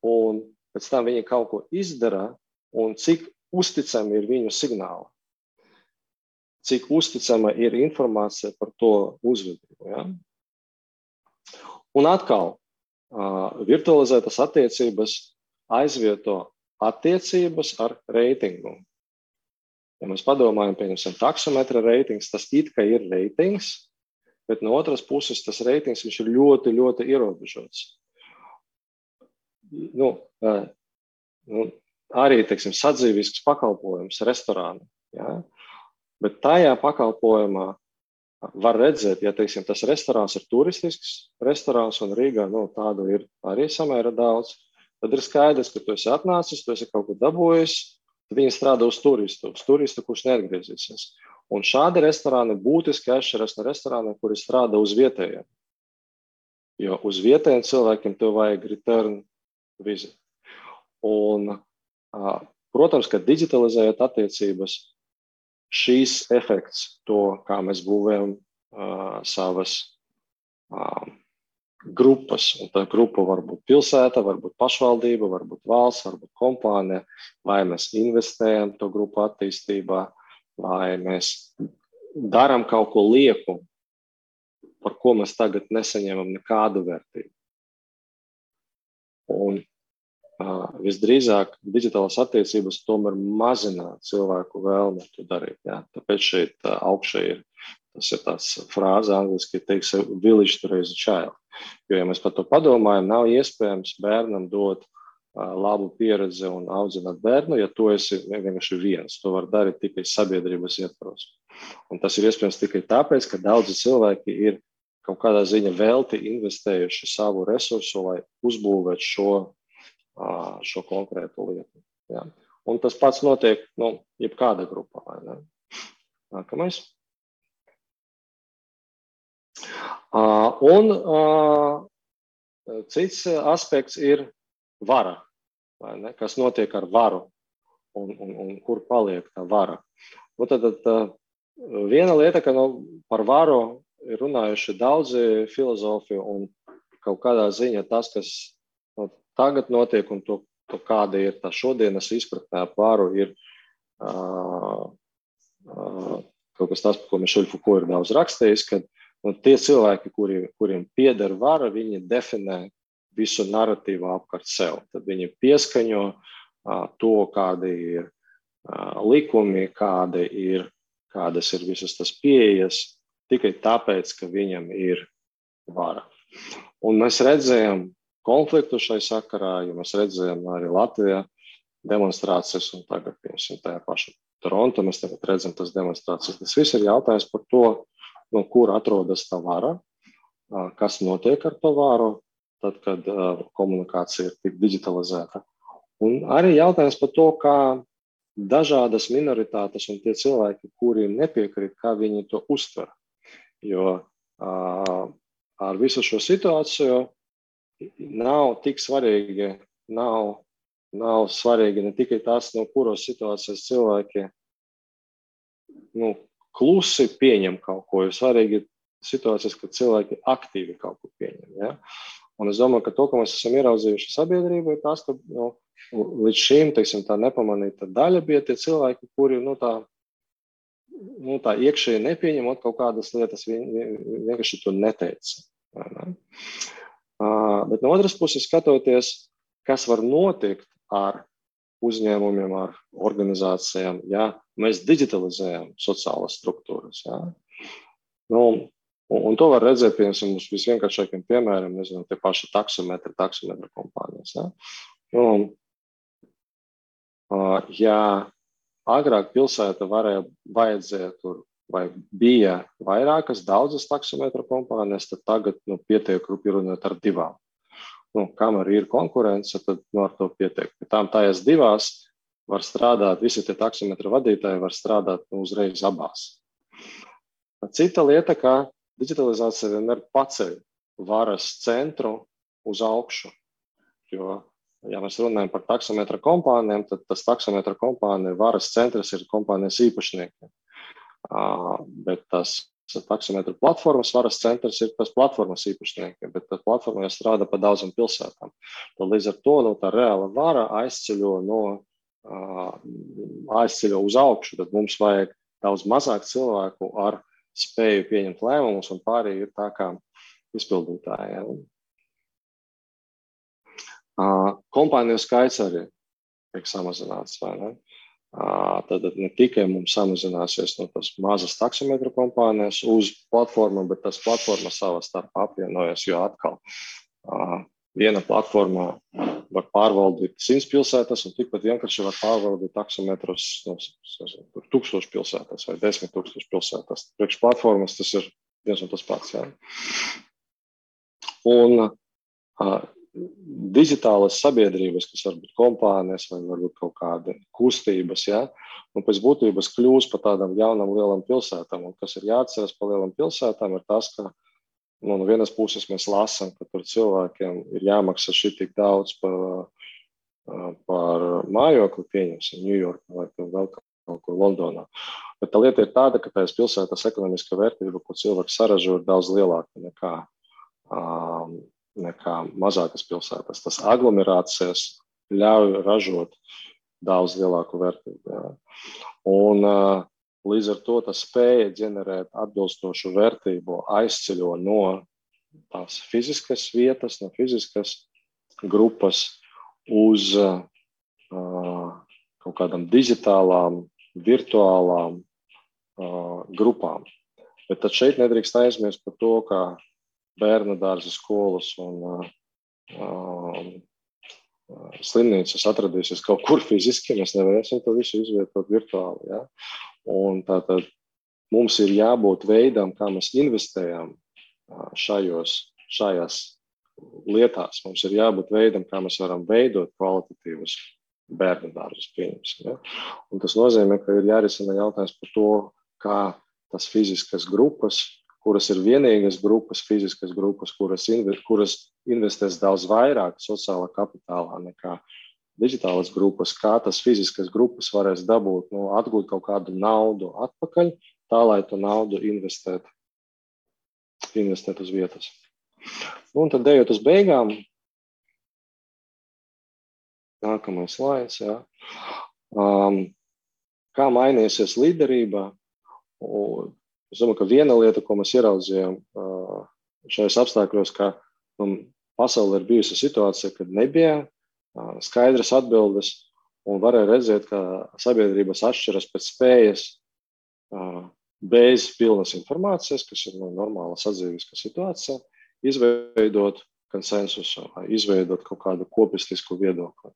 un pēc tam viņi kaut ko izdara, un cik uzticami ir viņu signāli. Cik uzticama ir informācija par to uzvedību. Ja? Un atkal, virtualizētas attiecības aizvieto attiecības ar reitingu. Ja mēs padomājam, pieņemsim, taksometra reitings, tas it kā ir reitings, bet no otras puses tas reitings viņš ir ļoti, ļoti ierobežots. Arī, teiksim, sadzīvisks pakalpojums restorāna. Ja? Bet tajā pakalpojumā var redzēt, ja, teiksim, tas restorāns ir turistisks restorāns un Rīgā, tādu ir arī samērā daudz, tad ir skaidrs, ka tu esi atnācis, tu esi kaut ko dabūjis, tad viņi strādā uz turistu, kurš neatgriezīsies. Un šādi restorāni būtiski atšķiras no restorāniem, kuri strādā uz vietējiem. Jo uz vietējiem cilvēkiem tev vajag return visit. Un, protams, ka digitalizējot attiecības, šīs efekts, to, kā mēs būvējam savas grupas, un tā grupa var būt pilsēta, var būt pašvaldība, var būt valsts, var būt kompānija, vai mēs investējam to grupu attīstībā, vai mēs darām kaut ko lieku, par ko mēs tagad nesaņemam nekādu vērtību. Un visdrīzāk digitālās attiecības tomēr mazina cilvēku vēlmi to darīt. Jā. Tāpēc šeit augšā tas ir tāds frāze angliski, teiks, village to raise a child. Jo, ja mēs par to padomājam, nav iespējams bērnam dot labu pieredzi un audzināt bērnu, ja tu esi vienkārši viens. To var darīt tikai sabiedrības ietvaros. Un tas ir iespējams tikai tāpēc, ka daudzi cilvēki ir kaut kādā ziņa velti investējuši savu resursu, lai uzbūvētu šo konkrētu lietu. Jā. Un tas pats notiek, jebkāda grupā. Vai ne? Nākamais. Un cits aspekts ir vara, vai ne? Kas notiek ar varu un kur paliek tā vara. Un tad viena lieta, ka par varu ir runājuši daudzi filozofi un kaut kādā ziņā tas, kas tagad notiek un to kāda ir tā šodienas izpratnē par varu, ir kaut kas tas, par ko Mišeļ Fuko ir daudz rakstījis, ka tie cilvēki, kuriem pieder vara, viņi definē visu narratīvu apkārt sev. Tad viņi pieskaņo to, kādi ir likumi, kādas ir visas tas pieejas, tikai tāpēc, ka viņam ir vara. Un mēs redzējām konfliktu šai sakarā, jo mēs redzējām arī Latvijā demonstrācijas, un tagad, piemēram, tajā paša Toronto, mēs tagad redzam tas demonstrācijas. Tas viss ir jautājums par to, kur atrodas tā vara, kas notiek ar to varu, tad, kad komunikācija ir tik digitalizēta. Un arī jautājums par to, kā dažādas minoritātes un tie cilvēki, kuri nepiekrīt, kā viņi to uztver. Jo ar visu šo situāciju nav tik svarīgi, nav svarīgi ne tikai tas, no kuros situācijas cilvēki klusi pieņem kaut ko, ir svarīgi situācijas, kad cilvēki aktīvi kaut ko pieņem. Ja? Un es domāju, ka to, ko mēs esam ieraudzījuši sabiedrībā, ir tas, ka līdz šīm, teiksim, tā nepamanīta daļa bija tie cilvēki, kuri tā iekšēji nepieņemot kaut kādas lietas, vienkārši to neteica. Ne? Bet no otras puses skatoties, kas var notikt ar uzņēmumiem, ar organizācijām, ja mēs digitalizējam sociālas struktūras. Ja? Un to var redzēt, piemēram, uz visvienkāršākiem piemēriem, nezinu, tie paši taksometra kompānijas. Ja? Ja agrāk pilsēta vajadzēja tur, vai bija vairākas, daudzas taksometra kompānijas, tad tagad pietiek runāt ar 2. Kamēr ir konkurence, tad ar to pietiek. Tām tajās 2 var strādāt, visi tie taksometra vadītāji var strādāt uzreiz abās. Cita lieta, ka digitalizācija vienmēr paceļ varas centru uz augšu. Jo, ja mēs runājam par taksometra kompānijām, tad tas taksometra kompānija varas centrs ir kompānijas īpašnieki. Bet tas taksometra platformas varas centrs ir tas platformas īpašnieki, bet tā platforma jau strādā pa daudzām pilsētām. Tad līdz ar to tā reāla vara aizceļo uz augšu, tad mums vajag daudz mazāk cilvēku ar spēju pieņemt lēmumus, un pārējie ir tā kā izpildītāji. Kompāniju skaits arī tiek samazināts, vai ne? Tad ne tikai mums samazināsies tas mazas taksometra kompānijas uz platformu, bet tas platforma savā starpā apvienojas, jo atkal viena platformā var pārvaldīt 100 pilsētas, un tikpat vienkārši var pārvaldīt taksometrus 1000 pilsētās vai 10 000 pilsētās. Priekš platformas tas ir viens un tas pats. Ja? Un digitālas sabiedrības, kas var būt kompānijas vai varbūt kaut kāda kustības, ja? Un pēc būtības kļūs par tādām jaunām lielām pilsētām. Un kas ir jāatceras par lielām pilsētām, ir tas, ka no vienas puses mēs lasām, ka tur cilvēkiem ir jāmaksā šī tik daudz par mājokli, pieņemsim, Ņujorkā vai vēl kaut kur Londonā. Bet tā lieta ir tāda, ka tās pilsētas ekonomiskā vērtība, ko cilvēks saražo, ir daudz lielāka nekā mazākas pilsētas. Tas aglomerācijas ļauj ražot daudz lielāku vērtību. Jā. Un līdz ar to tas spēja ģenerēt atbilstošu vērtību aizceļo no tās fiziskas vietas, no fiziskas grupas uz kaut kādām digitālām, virtuālām grupām. Bet tad šeit nedrīkst aizmirst par to, ka bērnu dārza skolas un slimnīcas atradīsies kaut kur fiziski, mēs nevarēsim to visu izvietot virtuāli. Ja? Un tātad mums ir jābūt veidam, kā mēs investējam šajās lietās. Mums ir jābūt veidam, kā mēs varam veidot kvalitatīvus bērnu dārzus, pieņemsim. Ja? Un tas nozīmē, ka ir jārisina jautājums par to, kā tas fiziskas grupas, kuras ir vienīgas grupas, fiziskas grupas, kuras investēs daudz vairāk sociālā kapitālā nekā digitālas grupas, kā tas fiziskas grupas varēs dabūt, atgūt kaut kādu naudu atpakaļ, tā, lai to naudu investēt uz vietas. Un tad ejot uz beigām, nākamais slaids, jā. Kā mainīsies līderība? Es domāju, ka viena lieta, ko mēs ieraudzījām šajos apstākļos, ka pasaulē ir bijusi situācija, kad nebija skaidras atbildes un varēja redzēt, ka sabiedrības atšķiras pēc spējas bez pilnas informācijas, kas ir normāla sadzīviska situācija, izveidot konsensusu, izveidot kaut kādu kopistisku viedokli.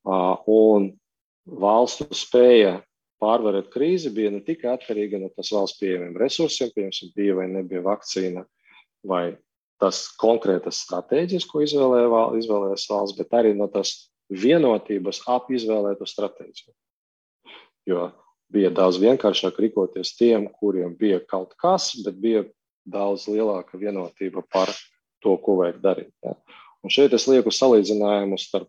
Un valstu spēja pārvarēt krīzi bija ne tikai atkarīga no tas valsts pieejamiem resursiem, piemēram, bija vai nebija vakcīna, vai tas konkrētas stratēģijas, ko izvēlējās valsts, bet arī no tas vienotības ap izvēlētu stratēģiju. Jo bija daudz vienkāršāk rīkoties tiem, kuriem bija kaut kas, bet bija daudz lielāka vienotība par to, ko vajag darīt. Ja. Un šeit es lieku salīdzinājumu starp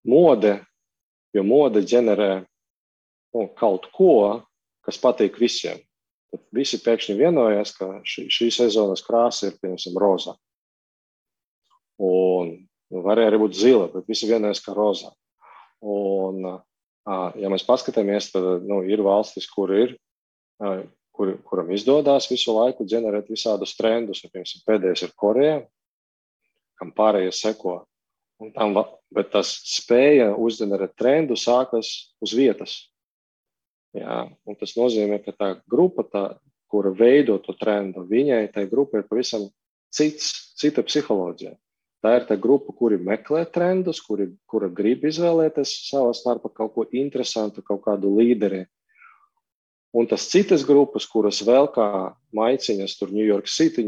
mode, jo mode ģenerē kaut ko, kas patīk visiem. Tad visi pēkšņi vienojās, ka šī sezonas krāsa ir, piemēram, rozā. Un varēja arī būt zila, bet visi vienojās, ka rozā. Un, ja mēs paskatāmies, tad ir valstis, kuram izdodās visu laiku ģenerēt visādus trendus. Piemēram, pēdējais ir Koreja, kam pārējie seko. Bet tas spēja uzģenerēt trendu sākas uz vietas. Jā, un tas nozīmē, ka tā grupa, kura veido to trendu, viņai tai grupa ir pavisam cita psiholoģija. Tā ir tā grupa, kuri meklē trendus, kura grib izvēlēties savā starpā kaut ko interesantu, kaut kādu līderi. Un tas citas grupas, kuras vēl kā maiciņas tur New York City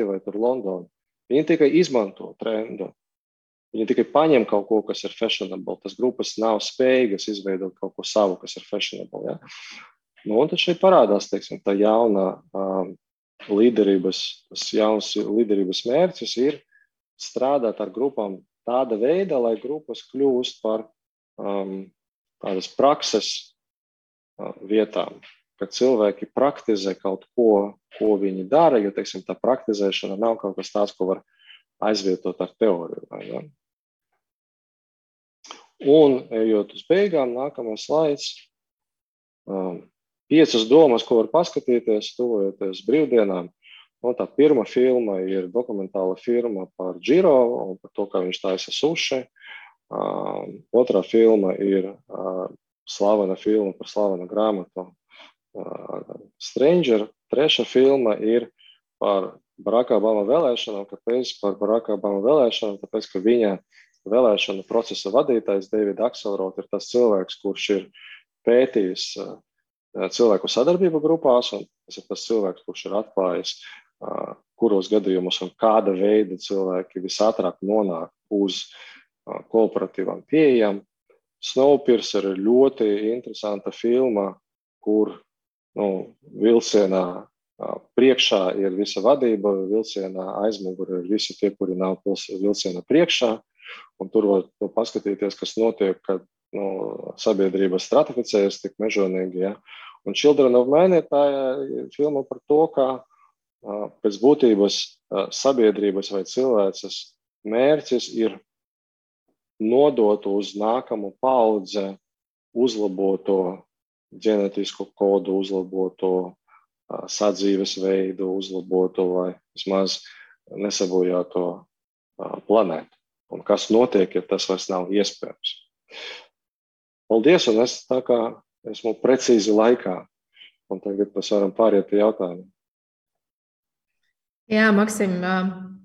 vai tur London, viņi tikai izmanto trendu. Viņi tikai paņem kaut ko, kas ir fashionable. Tas grupas nav spējīgas izveidot kaut ko savu, kas ir fashionable. Ja? Un tad šeit parādās, teiksim, tā jaunā līderības mērķis ir strādāt ar grupām tāda veida, lai grupas kļūst par tādas prakses vietām, kad cilvēki praktizē kaut ko viņi dara, jo, teiksim, tā praktizēšana nav kaut kas tāds, ko var aizvietot ar teoriju. Vai, ja? Un, ejot uz beigām, nākamais slaids. 5 domas, ko var paskatīties, tuvojoties brīvdienām. Tā pirma filma ir dokumentāla filma par Giro un par to, kā viņš taisa suši. Otrā filma ir slavena filma par slavenu grāmatu Stranger. Trešā filma ir par Baracka Obama vēlēšanām. Kāpēc par Baracka Obama vēlēšanām? Tāpēc, ka viņa vēlēšanu procesa vadītājs David Axelrod ir tas cilvēks, kurš ir pētījis cilvēku sadarbību grupās, un tas ir tas cilvēks, kurš ir atklājis, kuros gadījumos un kāda veida cilvēki visātrāk nonāk uz kooperatīvām pieejām. Snowpiercer ir ļoti interesanta filma, kur vilcienā priekšā ir visa vadība, vilcienā aizmugurē ir visi tie, kuri nav vilciena priekšā, un tur var paskatīties, kas notiek, kad sabiedrība stratificējas tik mežonīgi. Ja? Un Children of Men ir tā filma par to, kā pēc būtības sabiedrības vai cilvēces mērķis ir nodot uz nākamu paudze uzlaboto ģenētisko kodu, uzlaboto sadzīves veidu, uzlaboto vai vismaz nesabojāto planētu. Un kas notiek, ja tas vairs nav iespējams. Paldies, un es tā kā esmu precīzi laikā. Un tagad mēs varam pāriet pie jautājumiem. Jā, Maksim,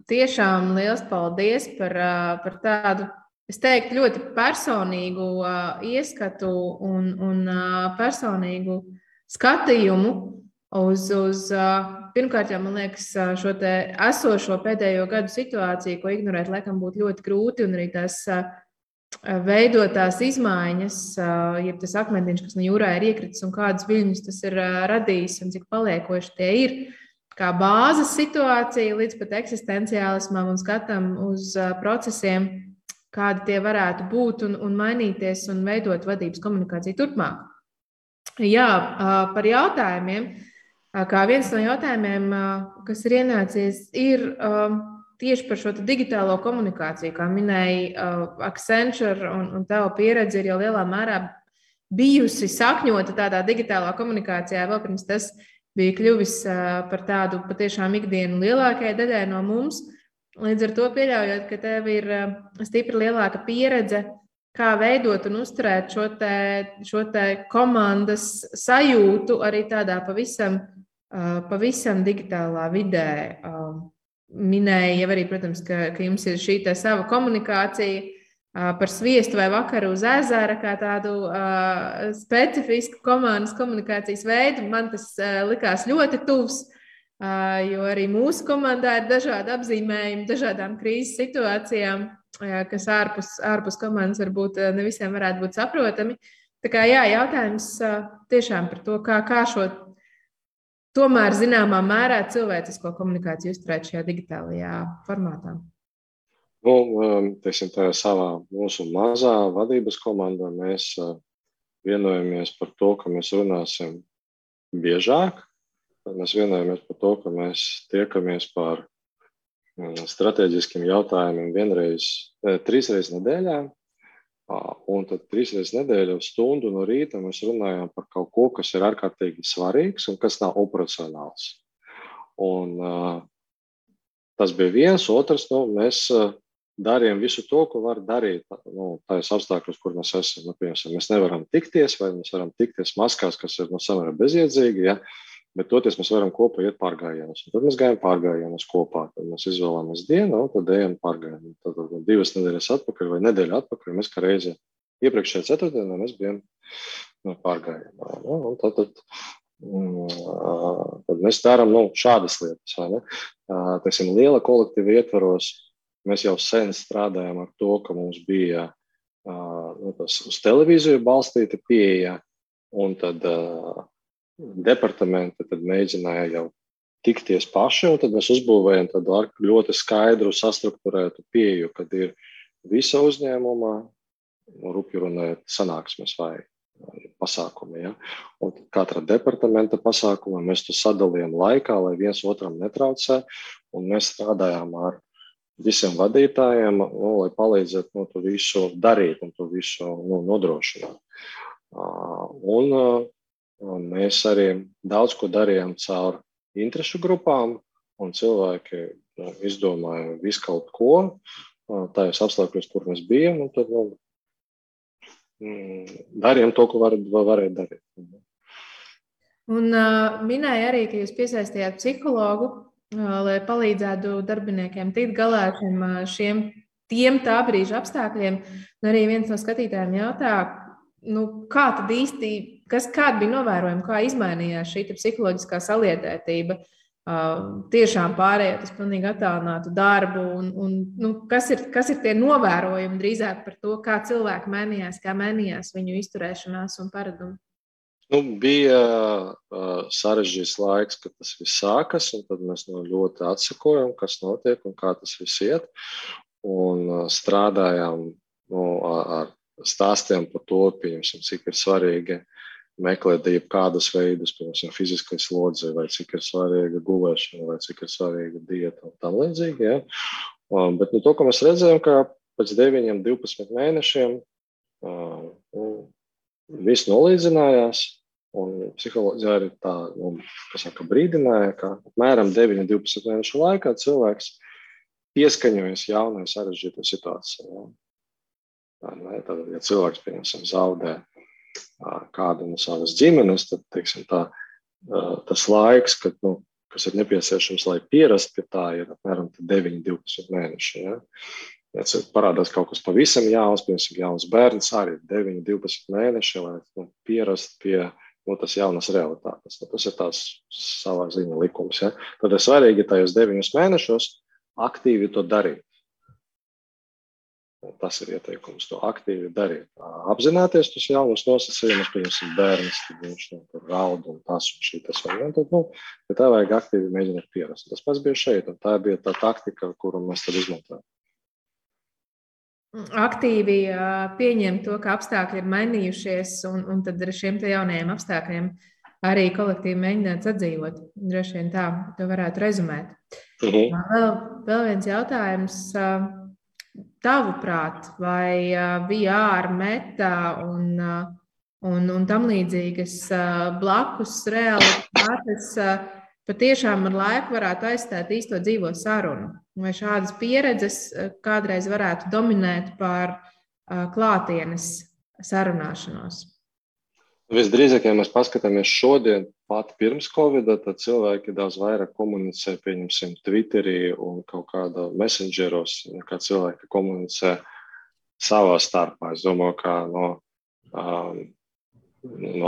tiešām liels paldies par tādu, es teiktu, ļoti personīgu ieskatu un personīgu skatījumu uz pirmkārt, jau, man liekas, šo te esošo pēdējo gadu situāciju, ko ignorēt, laikam, būtu ļoti grūti, un arī tās veidotās izmaiņas, jeb tas akmentiņš, kas no jūrā ir iekritis un kādas viļņus tas ir radījis un cik paliekoši tie ir, kā bāzes situācija līdz pat eksistenciālismam un skatam uz procesiem, kādi tie varētu būt un mainīties un veidot vadības komunikāciju turpmāk. Jā, par jautājumiem. Kā viens no jautājumiem, kas ir ienācies, ir tieši par šo digitālo komunikāciju. Kā minēja Accenture un tava pieredze ir jau lielā mērā bijusi sakņota tādā digitālā komunikācijā, vēl pirms tas bija kļuvis par tādu patiešām ikdienu lielākajai daļai no mums. Līdz ar to pieļaujot, ka tev ir stipri lielāka pieredze, kā veidot un uzturēt šo te komandas sajūtu arī tādā pavisam digitālā vidē. Minēja jau arī, protams, ka jums ir šī tā sava komunikācija par sviestu vai vakaru uz ezera, kā tādu specifisku komandas komunikācijas veidu. Man tas likās ļoti tuvs, jo arī mūsu komandā ir dažādi apzīmējumi, dažādām krīzes situācijām, kas ārpus komandas varbūt ne visiem varētu būt saprotami. Tā kā jā, jautājums tiešām par to, kā šo tomēr zināmā mērā cilvēcisko komunikāciju uzturēt šajā digitālajā formātā. Teiksim, tajā savā mūsu mazā vadības komandā mēs vienojamies par to, ka mēs runāsim biežāk. Mēs vienojamies par to, ka mēs tiekamies par strateģiskiem jautājumiem 3 reizes nedēļā. Un tad 3 reizes nedēļā stundu no rīta mēs runājam par kaut ko, kas ir ārkārtīgi svarīgs un kas nav operacionāls. Un tas bija viens, otrs, mēs darījām visu to, ko var darīt tajos apstākļos, kur mēs esam. Piemēram, mēs nevaram tikties, vai mēs varam tikties maskās, kas ir samērā bezjēdzīgi, ja? Bet toties mēs varam kopā iet pārgājienus. Tad mēs gājam pārgājienus kopā. Tad mēs izvēlamies dienu, tad ejam pārgājienus. Tad 2 nedēļas atpakaļ vai nedēļu atpakaļ mēs kā reizi iepriekšējā ceturtdienā mēs bijām pārgājienā. Tad mēs darām šādas lietas. Vai ne? Teiksim, liela kolektīva ietvaros mēs jau sen strādājam ar to, ka mums bija tas uz televīziju balstīta pieeja, un tad departamenti tad mēģināja jau tikties paši, un tad mēs uzbūvējam tādu ļoti skaidru, sastrukturētu pieeju, kad ir visa uzņēmuma, rupju runājot, sanāksmes vai pasākumi. Ja? Un katra departamenta pasākuma mēs to sadalījām laikā, lai viens otram netraucē, un mēs strādājām ar visiem vadītājiem, lai palīdzētu to visu darīt un to visu nodrošināt. Un mēs arī daudz ko darījām caur interešu grupām, un cilvēki izdomāja visu kaut ko tajos apstākļos, kur mēs bijām, un tad darījām to, ko varēja darīt. Un minēja arī, ka jūs piesaistījāt psihologu, lai palīdzētu darbiniekiem tikt galā ar šiem tiem tā brīža apstākļiem. Un arī viens no skatītājiem jautā, kā tad īsti, kāda bija novērojama, kā izmainījās šī psiholoģiskā saliedētība, tiešām pārējot uz pilnīgi attālinātu darbu, un kas ir tie novērojumi drīzāk par to, kā cilvēki mainījās, kā mainījās viņu izturēšanās un paradumi? Bija sarežģīts laiks, kad tas viss sākas, un tad mēs ļoti atsekojam, kas notiek un kā tas viss iet. Un strādājām ar stāstiem par to, pieņemsim, cik ir svarīgi meklēt jebkādus veidus, piemēram, fiziskais slodzi, vai cik ir svarīga gulēšana, vai cik ir svarīga dieta un tam līdzīgi. Ja? Bet to, ko mēs redzējām, ka pēc 9-12 mēnešiem viss nolīdzinājās, un psiholoģija arī tā, brīdināja, ka apmēram 9-12 mēnešu laikā cilvēks pieskaņojas jaunai sarežģītai situācijai. Tad, ja cilvēks, piemēram, zaudē kādu no savas ģimenes, tad, teiksim, tas laiks, kas ir nepieciešams, lai pierastu pie tā, ir apmēram 9-12 mēneši. Ja? Ja parādās kaut kas pavisam jauns, piemēram, jauns bērns, arī 9-12 mēneši, lai pierastu pie tas jaunas realitātes. Tas ir tās savā ziņa likums. Ja? Tad ir svarīgi tajos 9 mēnešos aktīvi to darīt. Tas ir ieteikums, to aktīvi darīt. Apzināties tos jaunus nosacījumus, piemēram, bērns, tad viņš raud un tas un šitas. Bet tā vajag aktīvi mēģināt pierast. Tas pats bija šeit, un tā bija tā taktika, kuru mēs tad izmantojam. Aktīvi pieņemt to, ka apstākļi ir mainījušies, un tad ar šiem jaunajiem apstākļiem arī kolektīvi mēģināt sadzīvot. Droši vien tā, to varētu rezumēt. Vēl viens jautājums. Tavuprāt, vai VR, meta un tam līdzīgas blakus realitātes patiešām ar laiku varētu aizstāt īsto dzīvo sarunu? Vai šādas pieredzes kādreiz varētu dominēt pār klātienes sarunāšanos? Visdrīzāk, ja mēs paskatāmies šodien, pat pirms Covid-a, tad cilvēki daudz vairāk komunicē, pieņemsim, Twitterī un kaut kādā messengeros, kā cilvēki komunicē savā starpā. Es domāju, ka no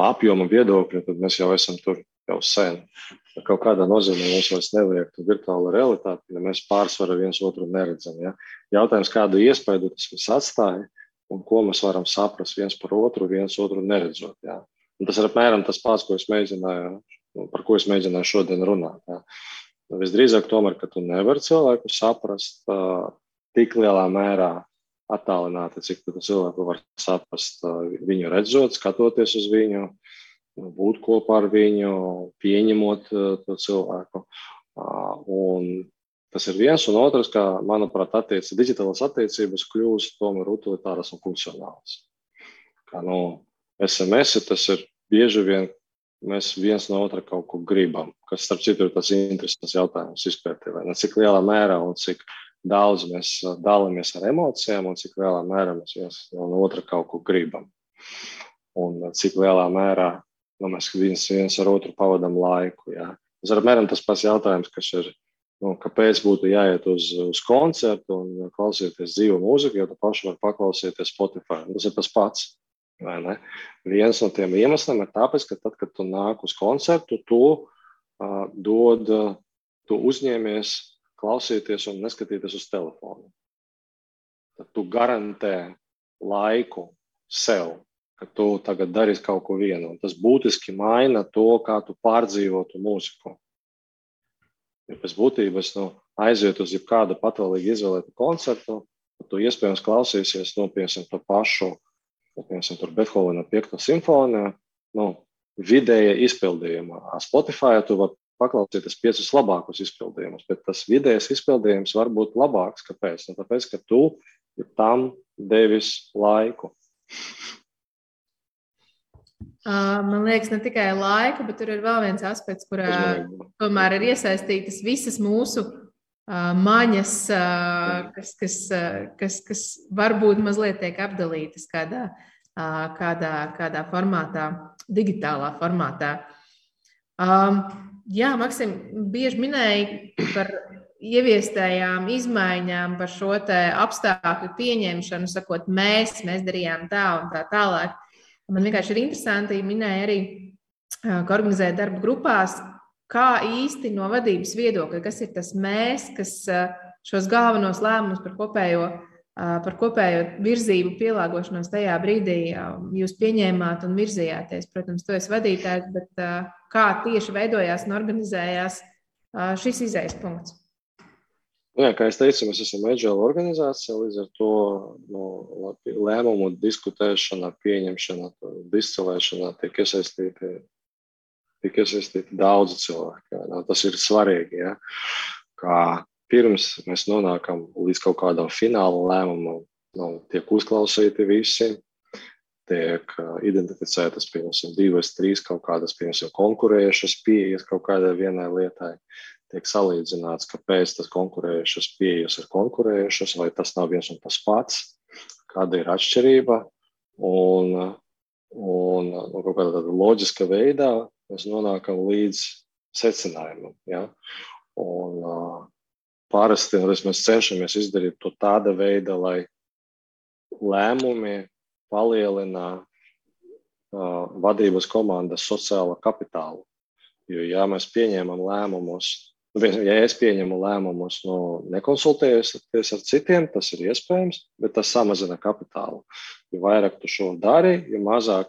apjoma viedokļa, tad mēs jau esam tur jau sen. Kaut kādā nozīmē mums vairs nevajag tu virtuāla realitāte, ja mēs pārsvaru viens otru neredzam. Ja? Jautājums, kādu iespēju tas mums atstāja un ko mēs varam saprast viens otru neredzot. Ja? Un tas ir apmēram tas pats, par ko es mēģināju šodien runāt. Ja? Visdrīzāk tomēr, ka tu nevari cilvēku saprast tik lielā mērā attālināti, cik tu cilvēku var saprast viņu redzot, skatoties uz viņu, būt kopā ar viņu, pieņemot to cilvēku. Un tas ir viens, un otrs, ka, manuprāt, digitālās attiecības kļūst tomēr utilitāras un funkcionālas. Kā SMS, tas ir bieži vien, mēs viens no otra kaut ko gribam, kas, starp citu, ir tas interesants jautājums izpētē, vai ne, cik lielā mērā un cik daudz mēs dalāmies ar emocijām un cik lielā mērā mēs viens no otra kaut ko gribam. Un cik lielā mērā mēs viens ar otru pavadam laiku. Ja. Tas ir apmēram tas pats jautājums, kas ir, kāpēc būtu jāiet uz koncertu un klausīties dzīvu mūziku, jo tu paši var paklausīties Spotify. Tas ir tas pats. Vai ne? Viens no tiem iemesliem ir tāpēc, ka tad, kad tu nāk uz koncertu, tu uzņēmies klausīties un neskatīties uz telefonu. Tad tu garantē laiku sev, ka tu tagad darīsi kaut ko vienu. Un tas būtiski maina to, kā tu pārdzīvotu mūziku. Ja pēc būtības aiziet uz jebkādu patvaļīgi izvēlētu koncertu, tad tu iespējams klausīsies, piemēram, to pašu, piemēram, tur Bethovena 5. simfonija, vidēja izpildījumā. Spotify tu var paklausīties 5 labākus izpildījumus, bet tas vidējais izpildījums var būt labāks. Kāpēc? Tāpēc, ka tu tam devis laiku. Man liekas, ne tikai laika, bet tur ir vēl viens aspekts, kurā tomēr ir iesaistītas visas mūsu maņas, kas varbūt mazliet tiek apdalītas kādā formātā, digitālā formātā. Jā, Maksim, bieži minēja par ieviestējām izmaiņām, par šo te apstākļu pieņemšanu, sakot, mēs darījām tā un tā tālāk. Man vienkārši ir interesanti, minēja arī, ka organizēja darba grupās, kā īsti no vadības viedokļa, kas ir tas mēs, kas šos galvenos lēmumus par kopējo virzību pielāgošanos tajā brīdī jūs pieņēmāt un virzījāties. Protams, tu esi vadītājs, bet kā tieši veidojās un organizējās šis izējas punkts? Jā, kā es teicu, mēs esam agile organizācija, līdz ar to lēmumu diskutēšanā, pieņemšanā, discilēšanā tiek iesaistīti daudzi cilvēki. Jā. Tas ir svarīgi, jā. Kā pirms mēs nonākam līdz kaut kādam fināla lēmumam, tiek uzklausīti visi, tiek identificētas, piemēram, 2 vai 3 kaut kādas, piemēram, konkurējušas pieejas kaut kādai vienai lietai. Tiek salīdzināts, kāpēc tas konkurējušas pieejas ir konkurējušas, vai tas nav viens un tas pats, kāda ir atšķirība. Un kaut kādā tāda loģiska veidā mēs nonākam līdz secinājumam. Ja? Un parasti mēs cenšamies izdarīt to tāda veida, lai lēmumi palielina vadības komandas sociālo kapitālu. Jo, ja mēs pieņemam lēmumus, ja es pieņemu lēmumus, nekonsultējoties ar citiem, tas ir iespējams, bet tas samazina kapitālu. Jo vairāk tu šo dari, jo mazāk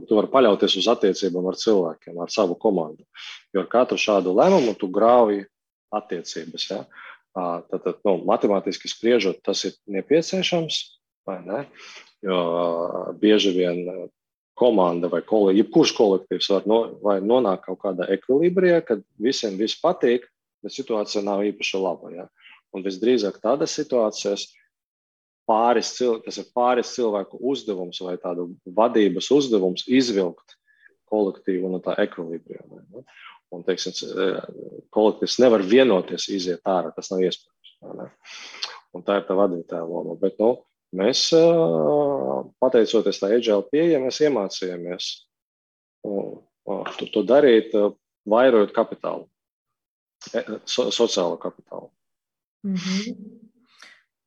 tu vari paļauties uz attiecībām ar cilvēkiem, ar savu komandu. Jo ar katru šādu lēmumu tu grauji attiecības. Ja? Tad, matemātiski spriežot, tas ir nepieciešams, vai ne? Jo bieži vien komanda vai jebkurš kolektīvs var nonākt kaut kādā ekvilibrijā, kad visiem viss patīk, bet situācija nav īpaši laba. Ja? Un visdrīzāk tādas situācijas tas ir pāris cilvēku uzdevums vai tādu vadības uzdevums izvilkt kolektīvu no tā ekvilibrijā. Ja? Un, teiksim, kolektīvs nevar vienoties iziet ārā, tas nav iespējams. Ja? Un tā ir tā vadītāja loma. Bet, mēs, pateicoties tā agile pieeja, mēs iemācījāmies to darīt, vairojot kapitālu, sociālo kapitālu.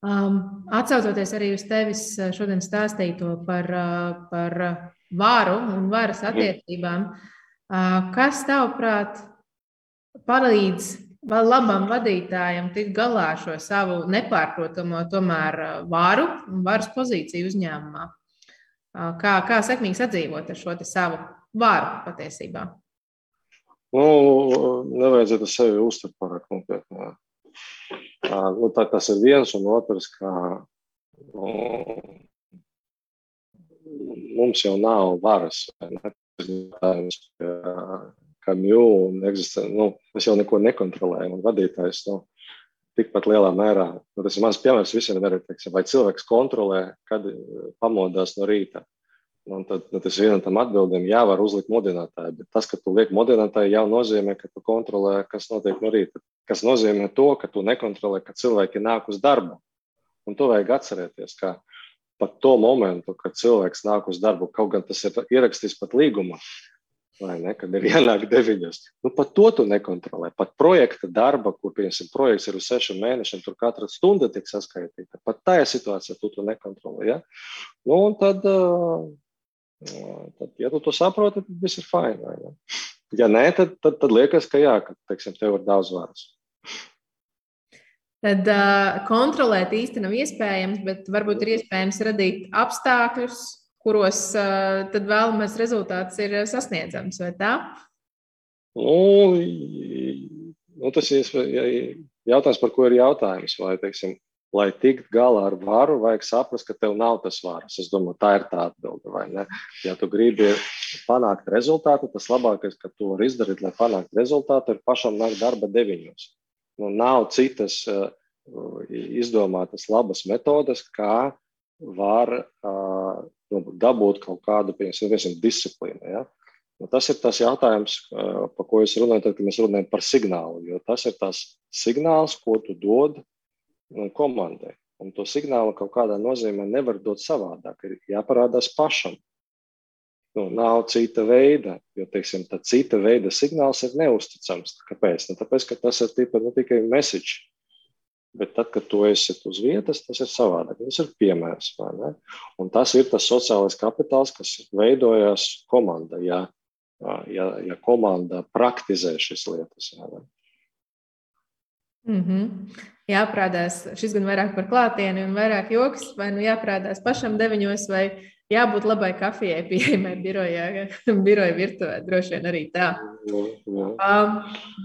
Atsaucoties arī uz tevis šodien stāstīto par varu un varas attiecībām, kas tavuprāt palīdz labam vadītājam tikt galā ar šo savu nepārprotamo tomēr varu un varas pozīciju uzņēmumā? Kā sekmīgi sadzīvot ar šo savu varu patiesībā? Nevajadzētu sevi uztvert pārāk nopietni. Tas ir viens un otrs, ka mums jau nav varas. Mēs jau neko nekontrolējam, un vadītājs tikpat lielā mērā. Tas ir mans piemērs visiem, vai cilvēks kontrolē, kad pamodās no rīta. Tad tas vienam tam atbildēm var uzlikt modinātāju, bet tas, ka tu liek modinātāju, jau nozīmē, ka tu kontrolē, kas notiek no rīta. Kas nozīmē to, ka tu nekontrolē, ka cilvēki nāk uz darbu. Un to vajag atcerēties, ka pat to momentu, kad cilvēks nāk uz darbu, kaut gan tas ir ierakstīts pat līgumā, vai ne, kad ir jānāk 9. Pat to tu nekontrolē. Pat projekta darba, kur, piemēram, projekts ir uz 6 mēnešiem, tur katra stunda tiek saskaitīta. Pat tajā situācijā tu nekontrolē. Ja? Un tad, ja tu to saproti, tad viss ir fine. Vai ne? Ja nē, tad liekas, ka ka, teiksim, tev ir daudz varas. Tad kontrolēt īsti nav iespējams, bet varbūt ir iespējams radīt apstākļus, kuros tad vēlamais rezultāts ir sasniedzams, vai tā? Tas ir jautājums, par ko ir jautājums. Vai, teiksim, lai tikt galā ar varu, vajag saprast, ka tev nav tas varas. Es domāju, tā ir tā atbilde, vai ne? Ja tu gribi panākt rezultātu, tas labākais, ka tu vari izdarīt, lai panāktu rezultātu, ir pašam nākt darba 9. Nav citas izdomātas labas metodes, kā var dabūt kaut kādu, piemēram, disciplīnu. Ja? Tas ir tas jautājums, par ko es runāju, tad, kad mēs runājam par signālu, jo tas ir tas signāls, ko tu dod komandai. Un to signālu kaut kādā nozīmē nevar dot savādāk, ir jāparādās pašam. nav cita veida, jo, teiksim, tā cita veida signāls ir neusticams. Kāpēc? Tāpēc, ka tas ir tikai message. Bet tad, kad tu esi uz vietas, tas ir savādāk. Tas ir piemērs, vai ne? Un tas ir tas sociālais kapitāls, kas veidojās komanda, ja komanda praktizē šīs lietas. Jāprādās, šis gan vairāk par klātieni un vairāk joks, vai jāprādās pašam 9 vai jābūt labai kafijai pieejamai biroja virtuvē, droši vien arī tā.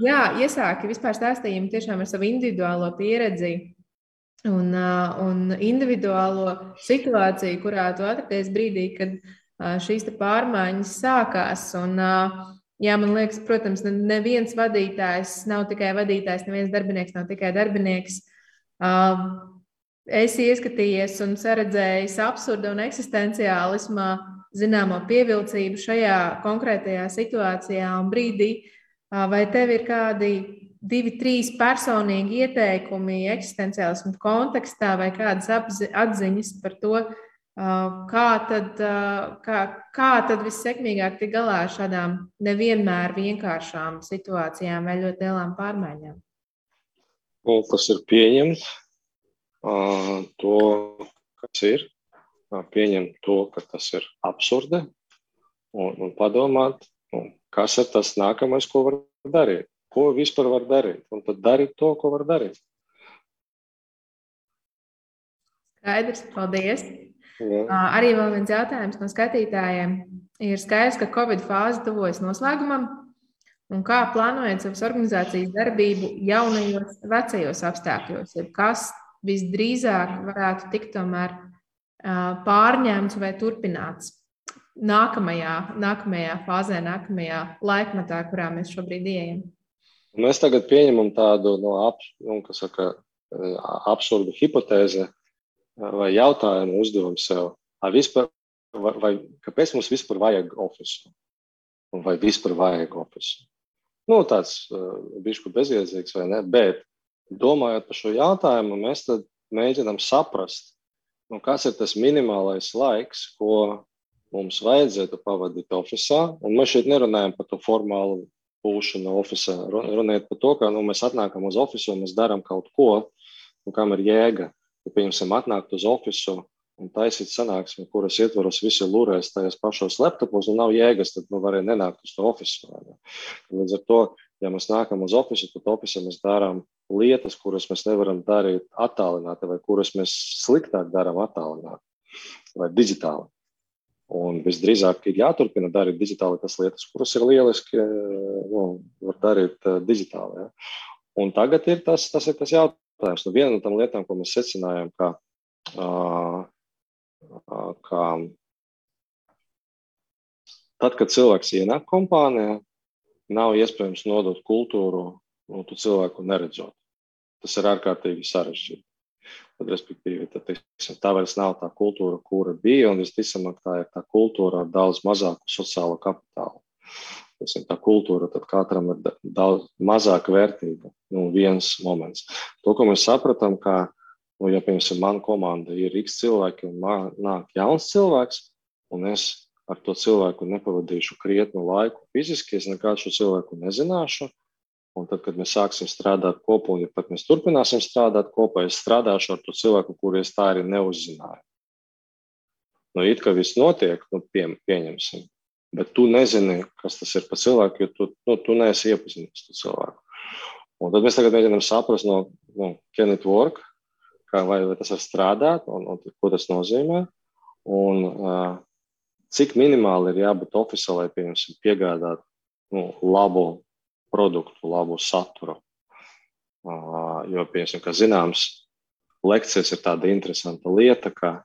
Jā, iesāki vispār stāstījumu tiešām ar savu individuālo pieredzi un individuālo situāciju, kurā tu atradies brīdī, kad šīs pārmaiņas sākās. Un, jā, man liekas, protams, neviens vadītājs nav tikai vadītājs, neviens darbinieks nav tikai darbinieks. Esi ieskatījies un saredzējis absurda un eksistenciālismā zināmo pievilcību šajā konkrētajā situācijā un brīdī. Vai tev ir kādi 2, 3 personīgi ieteikumi eksistenciālismu kontekstā vai kādas atziņas par to, kā tad vissekmīgāk tikt galā ar šādām nevienmēr vienkāršām situācijām vai ļoti lielām pārmaiņām? Tas ir pieņemt to, kas ir, pieņemt to, ka tas ir absurdi un padomāt, kas ir tas nākamais, ko var darīt, ko vispār var darīt, un tad darīt to, ko var darīt. Skaidrs, paldies. Jā. Arī vēl viens jautājums no skatītājiem. Ir skaidrs, ka Covid fāze tuvojas noslēgumam, un kā plānojat savas organizācijas darbību jaunajos, vecajos apstākļos? Kas visdrīzāk varētu tikt tomēr pārņemts vai turpināts nākamajā fāzē, nākamajā laikmetā, kurā mēs šobrīd ejam? Mēs tagad pieņemam tādu absurdu hipotēzi vai jautājumu uzdevumu sev. Kāpēc mums vispār vajag ofisu? Vai vispār vajag ofisu? Tāds bišķi bezjēdzīgs vai ne, bet domājot par šo jautājumu, mēs tad mēģinām saprast, kas ir tas minimālais laiks, ko mums vajadzētu pavadīt ofisā. Un mēs šeit nerunājam par to formālu būšanu ofisā. Runājot par to, ka mēs atnākam uz ofisu un mēs darām kaut ko, kam ir jēga. Ja, piemēram, atnākt uz ofisu un taisīt sanāksmi, kuras ietvaros visi lūrēs tajos pašos laptopos un nav jēgas, tad varēja nenākt uz to ofisu. Līdz ar to, ja mēs nākam uz ofisu, tad ofisā mēs darām lietas, kuras mēs nevaram darīt attālināti vai kuras mēs sliktāk darām attālināti vai digitāli. Un visdrīzāk ir jāturpina darīt digitāli tas lietas, kuras ir lieliski, var darīt digitāli. Ja. Un tagad ir tas jautājums. Viena no tām lietām, ko mēs secinājām, ka tad, kad cilvēks ienāk kompānijā, nav iespējams nodot kultūru tu cilvēku neredzot. Tas ir ārkārtīgi sarežģīti. Tad, respektīvi, tā vairs nav tā kultūra, kura bija, un visticamāk tā ir tā kultūra ar daudz mazāku sociālo kapitālu. Tā kultūra tad katram ir daudz mazāk vērtīga, viens moments. To, ko mēs sapratām, ka, ja, piemēram, mana komanda ir X cilvēki un nāk jauns cilvēks, un es ar to cilvēku nepavadīšu krietnu laiku fiziski, es nekādu šo cilvēku nezināšu, un tad, kad mēs sāksim strādāt kopā, un ja pat mēs turpināsim strādāt kopā, es strādāšu ar to cilvēku, kuru es tā arī neuzzināju. It kā viss notiek, pieņemsim. Bet tu nezini, kas tas ir par cilvēku, jo tu neesi iepazinis to cilvēku. Un tad mēs tagad mēģinām saprast, can it work, vai tas var strādāt, un ko tas nozīmē, un cik minimāli ir jābūt ofisā, lai piegādāt labu produktu, labu saturu. Jo, piemēram, kā zināms, lekcijas ir tāda interesanta lieta, ka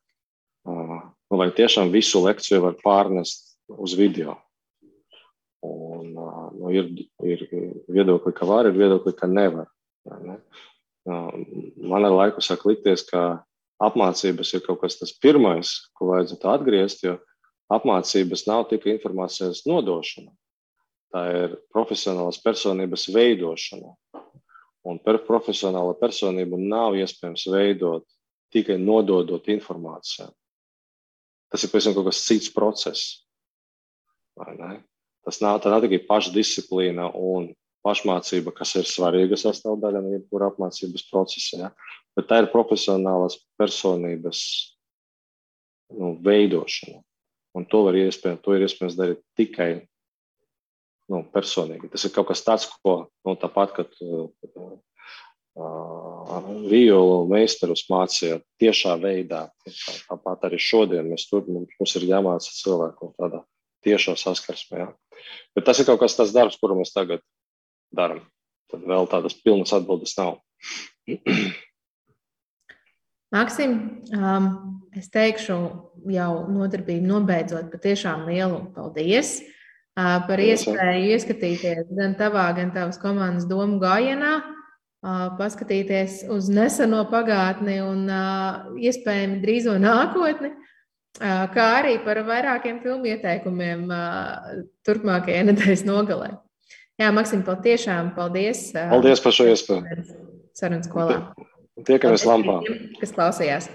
vai tiešām visu lekciju var pārnest uz video. Un ir viedokļi, ka var, ir viedokļi, ka nevar. Ne? Man ar laiku sāk likties, ka apmācības ir kaut kas tas pirmais, ko vajadzētu atgriezt, jo apmācības nav tikai informācijas nodošana. Tā ir profesionālas personības veidošana. Un profesionāla personība nav iespējams veidot tikai nododot informāciju. Tas ir pēc tam kaut kas cits process. vai ne? Tā nav tikai pašdisciplīna un pašmācība, kas ir svarīga sastāvdaļa no jebkura apmācības procesa, ja? Bet tā ir profesionālās personības veidošana. Un to ir iespējams darīt tikai personīgi. Tas ir kaut kas tāds, ko tāpat, kad violu meistarus mācīja tiešā veidā. Tāpat arī šodien mums ir jāmāca cilvēku tādā tiešā saskarsmē. Ja? Bet tas ir kaut kas tāds darbs, kuru mēs tagad darām. Tad vēl tādas pilnas atbildes nav. Maksim, es teikšu jau nodarbību nobeidzot patiešām lielu paldies par iespēju ieskatīties gan tavā, gan tavas komandas domu gājienā, paskatīties uz neseno pagātni un iespējami drīzo nākotni, kā arī par vairākiem filmu ieteikumiem turpmākajai nedēļas nogalē. Jā, Maksim, patiešām paldies. Paldies par šo iespēju. Sarunas skolā. Tiekamies lampā. Kas klausījās.